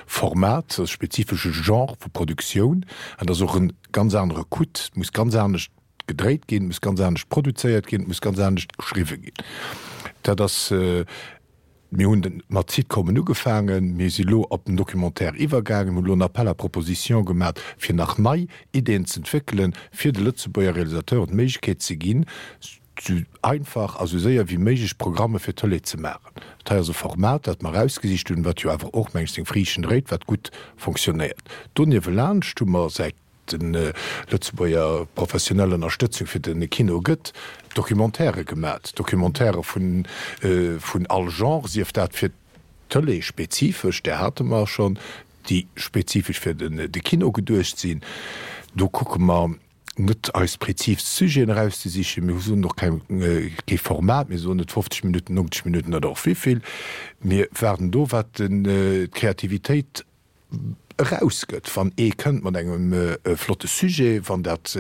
Format, e spezifesche Genre vu Produktioun, an dat ass och e ganz anere Coût. Et muss ganz anescht gedréit ginn, et muss ganz anescht produzéiert ginn, et muss ganz anescht geschriwwe ginn. Dat ass, mir hunn mat Sitcomen ugefaangen, mir si lo op den Documentaire iwwergaangen, mir hunn elo en Appel à propositions gemat, fir nach nei Ideeën z'entwéckelen, fir de Lëtzebuerger Realisateuren d'Méiglechkeet ze ginn, sou einfach a sou séier wéi méiglech Programme fir d'Tëlee ze maachen. Dat hei ass e Format, dat mer erausgesicht hunn, wat jo awer och, meng ech, seng Friichten dréit, wat gutt fonctionnéiert. Doniewelaanscht hu mer, säit de Lëtzebuerger professionell Ënnerstëtzung fir de Kino gëtt, Documentairë gemat, Documentairë vun all Genre, sief dat fir d'Tëlee spezifesch, där hate mer schonn, déi spezifesch fir de Kino geduecht sinn. Do kucke mer net eis prezis Sujeten erauszesichen, mir soen och keng, kee Format, mir soen net 50 Minutten, 90 Minutten oder och wéivill. Mir waarden do, wat d'Kreativitéit erausgëtt. Wann ee kënnt mat engem flotte Sujet, wann dat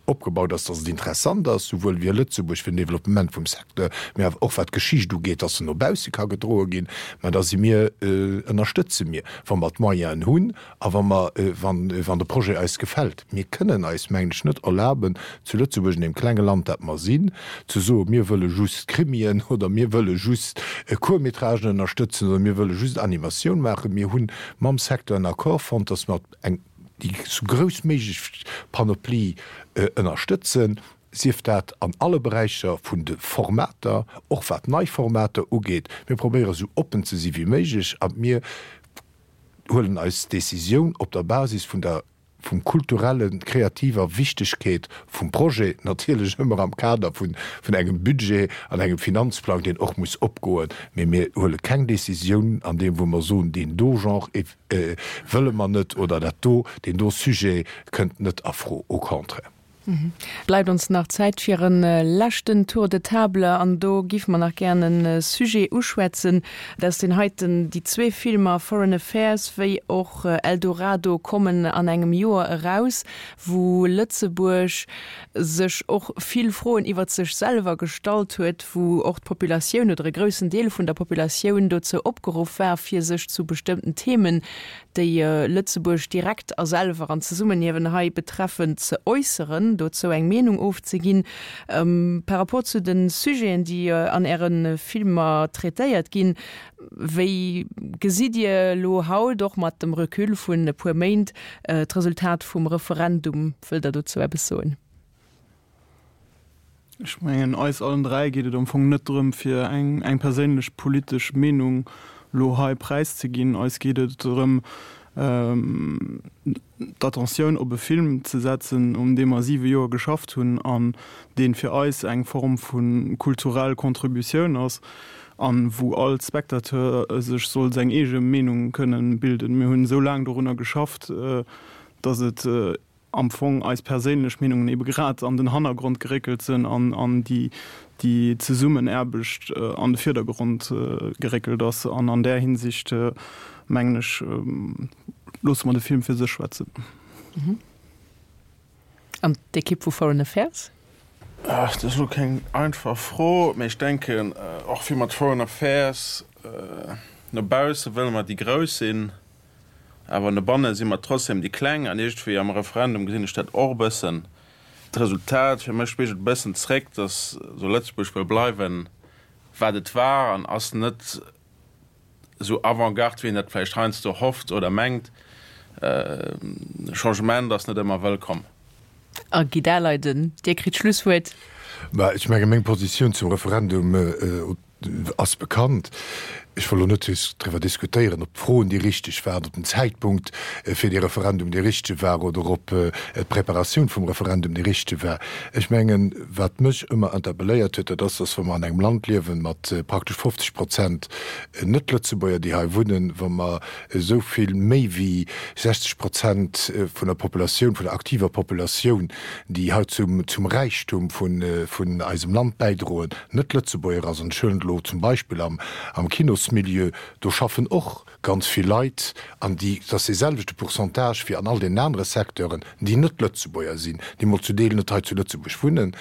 opgebaut ass, dass et interessant ass, souwuel fir Lëtzebuerg, fir den Développement vum Secteur, mä awer och wat d'Geschicht ugeet, dass se no bausse ka gedroe ginn, mä da si mir, ënnerstëtze mir, wa mer d'Moyenen hunn A wa mer, wann, wann de Projet eis gefält, mir kënnen eis, mengen ech, net erlaben, zu Lëtzebuerg, an deem klenge Land, dat mer sinn, ze soen, mir wëlle just Krimien oder mir wëlle just Court-métragen ënnerstëtzen oder mir wëlle just Animatioun maachen. Mir hu mam Secteur en Accord fonnt, dass mer eng, déi sou grouss méiglech Panoplie ënnerstëtzen, sief dat an alle Beräicher vun de Formater, och wat nei Formater ugeet. Mir probéiere sou oppen ze si wéi méiglech a mir huelen eis Décisioun op der Basis vun der vum kulturellen, kreativer Wichtegkeet vum Projet, natierlech ëmmer am Kader vun vun engem Budget an engem Finanzplang, deen och muss opgoen, mee mir huele keng Décisioun an deem wou mer soen, deen do Genre wëlle mer net oder dat do, deen do Sujet kënnt net a Fro, au contraire. Bleift ons nach Zäit fir e leschten Tour de table an do géife mer nach gären e Sujet uschwätzen. Dat ass deen heiten, Déi zwee Filmer Foreign Affairs wéi och Eldorado kommen an engem Joer eraus, wou Lëtzebuerg sech och vill Froen iwwert sech selwer gestallt huet, wou och d'Populatioun oder e groussen Deel vun der Populatioun dozou opgeruff war, fir sech zu bestëmmten Themen déi Lëtzebuerg direkt a selwer an Zesummenhiewen hei betreffen, ze äusseren, dozou eng Meenung ofzeginn. Par rapport zu de Sujeten, déi an Äre Filmer traitéiert ginn, wéi gesitt Dir elo haut, och mat dem Recul vun e puer Méint, d'Resultat vum Referendum? Wëllt Der dozou eppes soen? Ech mengen, eis allen 3 geet et am Fong net drëm, fir eng eng perséinlech politesch Meenung elo hei präiszeginn. Eis geet et drëm, d'Attentioun op e Film ze setzen, un deem mer siwe Joer geschafft hunn an dee fir eis eng Form vu kulturell Contributioun ass a wou all Spectateur sech soll seng eege Meenung kënnen bilden. Mir hunn esou laang dorunner geschafft, datt et. am Fong eis perséinlech Meenungen ebe grad an den Hannergrond geréckelt sinn an an déi déi Zesummenaarbecht an de Virdergrond geréckelt ass. An an där Hinsicht, mengen ech, loosse mer de Film fir sech schwätzen. An d'Ekipp vu Foreign Affairs? Dat ass elo keng einfach Fro, mee ech denken, och wéi mat Foreign Affairs, no bausse wëlle mer déi Grouss sinn, awer no banne si mer trotzdem déi Kleng. An iergendwéi am Referendum gesinn ech dat och e bëssen. D'Resultat fir mech spigelt e bëssen zréck, datt esou Lëtzebuerg wëll bleiwen, wat et war an ass net esou Avant-garde, wéi een dat vläicht heiansdo hofft oder mengt. Changement ass net ëmmer wëllkomm. A Guy Daleiden, Dir kritt d'Schlusswuert. Mä ech menge meng Positioun zum Referendum ass bekannt. Ech wëll elo net driwwer diskutéieren, ob d'Froen déi richteg waren, ob den Zäitpunkt fir dee Referendum dee richtege war oder ob d'Preparatioun vum Referendum déi richtege war. Ech mengen, wat mech ëmmer interpelléiert huet, dat ass, dass wa mer an engem Land liewen mat praktesch 50 Prozent Net-Lëtzebuerger, déi hei wunnen, wa mer esou vill méi wéi 60 Prozent vun der Populatioun, vun der aktiver Populatioun, déi hei zum, zum Räichtum vun, vun eisem Land bäidroen, net Lëtzebuerger ass. An ech huelen et elo zum Beispill am, am Kinosmilieu, do schaffen och ganz vill Leit, an déi, et ass dee selwechte Pourcentage wéi an all deenen anere Secteuren, déi net Lëtzebuerger sinn, déi mol zu Deel net hei zu Lëtzebuerg wunnen,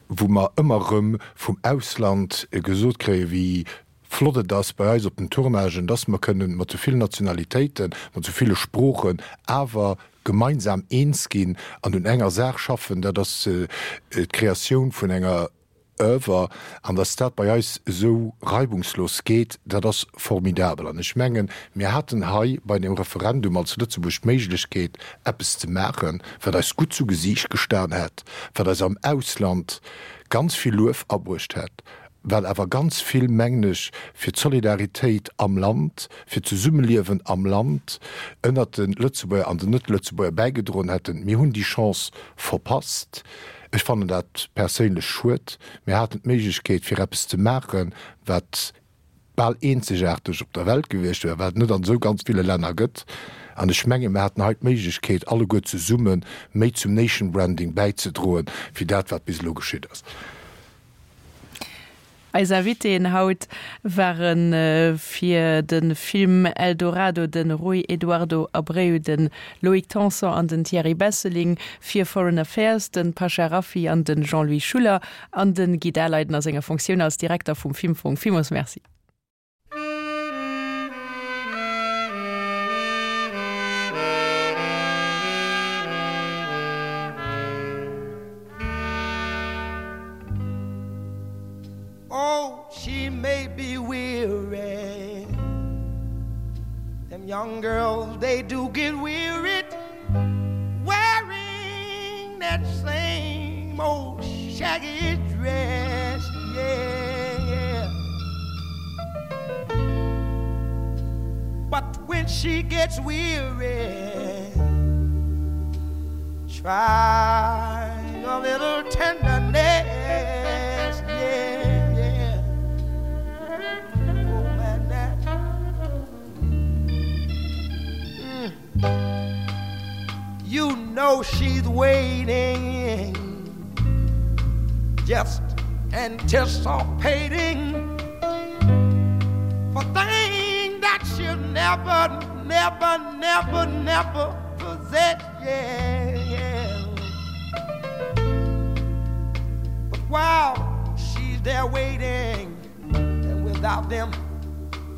wou mer ëmmer erëm vum Ausland gesot kréien, wéi flott et ass bei eis op den Tournagen, dass mer kënnen mat sou villen Nationalitéiten, mat sou ville Sproochen awer gemeinsam eens ginn an un enger Saach schaffen, dat ass d'Kreatioun vun enger Oeuvre. An dass dat bei eis esou reibungslos geet, dat ass formidabel. An ech mengen, mir haten hei bei deem Referendum als Lëtzebuerg d'Méiglechkeet, eppes ze maachen, wat eis gutt zu Gesiicht gestan hätt, wat eis am Ausland ganz vill Luef abruecht hätt, wat awer ganz vill, mengen ech, fir d'Solidaritéit am Land, fir d'Zesummeliewen am Land ënnert de Lëtzebuerger an den Net-Lëtzebuerger bäigedroen hätten. Mir hunn déi Chance verpasst. Ech fannen dat perséinlech schued. Mir haten d'Méiglechkeet, fir eppes ze maachen, wat bal eenzegaarteg op der Welt gewiescht wär, wat et net an esou ganz ville Länner gëtt. An ech mengen, mir haten hei d'Méiglechkeet, alleguer zesumme méi zum Nation Branding bäizedroen, wéi dat, wat bis elo geschitt ass. Eis Invitéen haut ware fir de Film Eldorado de Rui Eduardo Abreu, de Loïc Tanson an den Thierry Besseling, fir Foreign Affairs de Pasha Rafiy an de Jean-Louis Schuller an de Guy Daleiden a senger Fonctioun als Direkter vum Filmfong. Villmools Merci. Oh, she may be weary. Them young girls, they do get wearied wearing that same old shaggy dress. Yeah, yeah. But when she gets weary, try a little tenderness. Yeah, yeah. Oh, man, that. Mm. You know she's waiting Just anticipating For things that she'll never, never, never, never possess yeah, yeah. But while she's there waiting And without them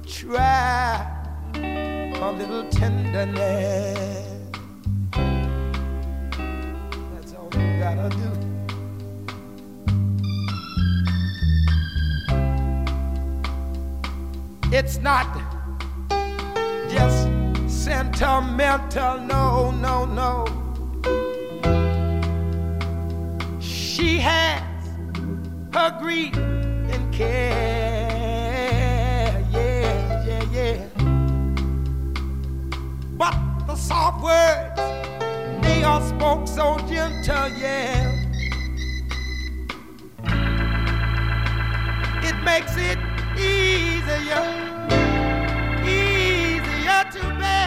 try a little tenderness That's all you gotta do It's not just sentimental no no no She has her grief and care yeah yeah yeah But the soft words they all spoke so gentle yeah It makes it easier easier to bear.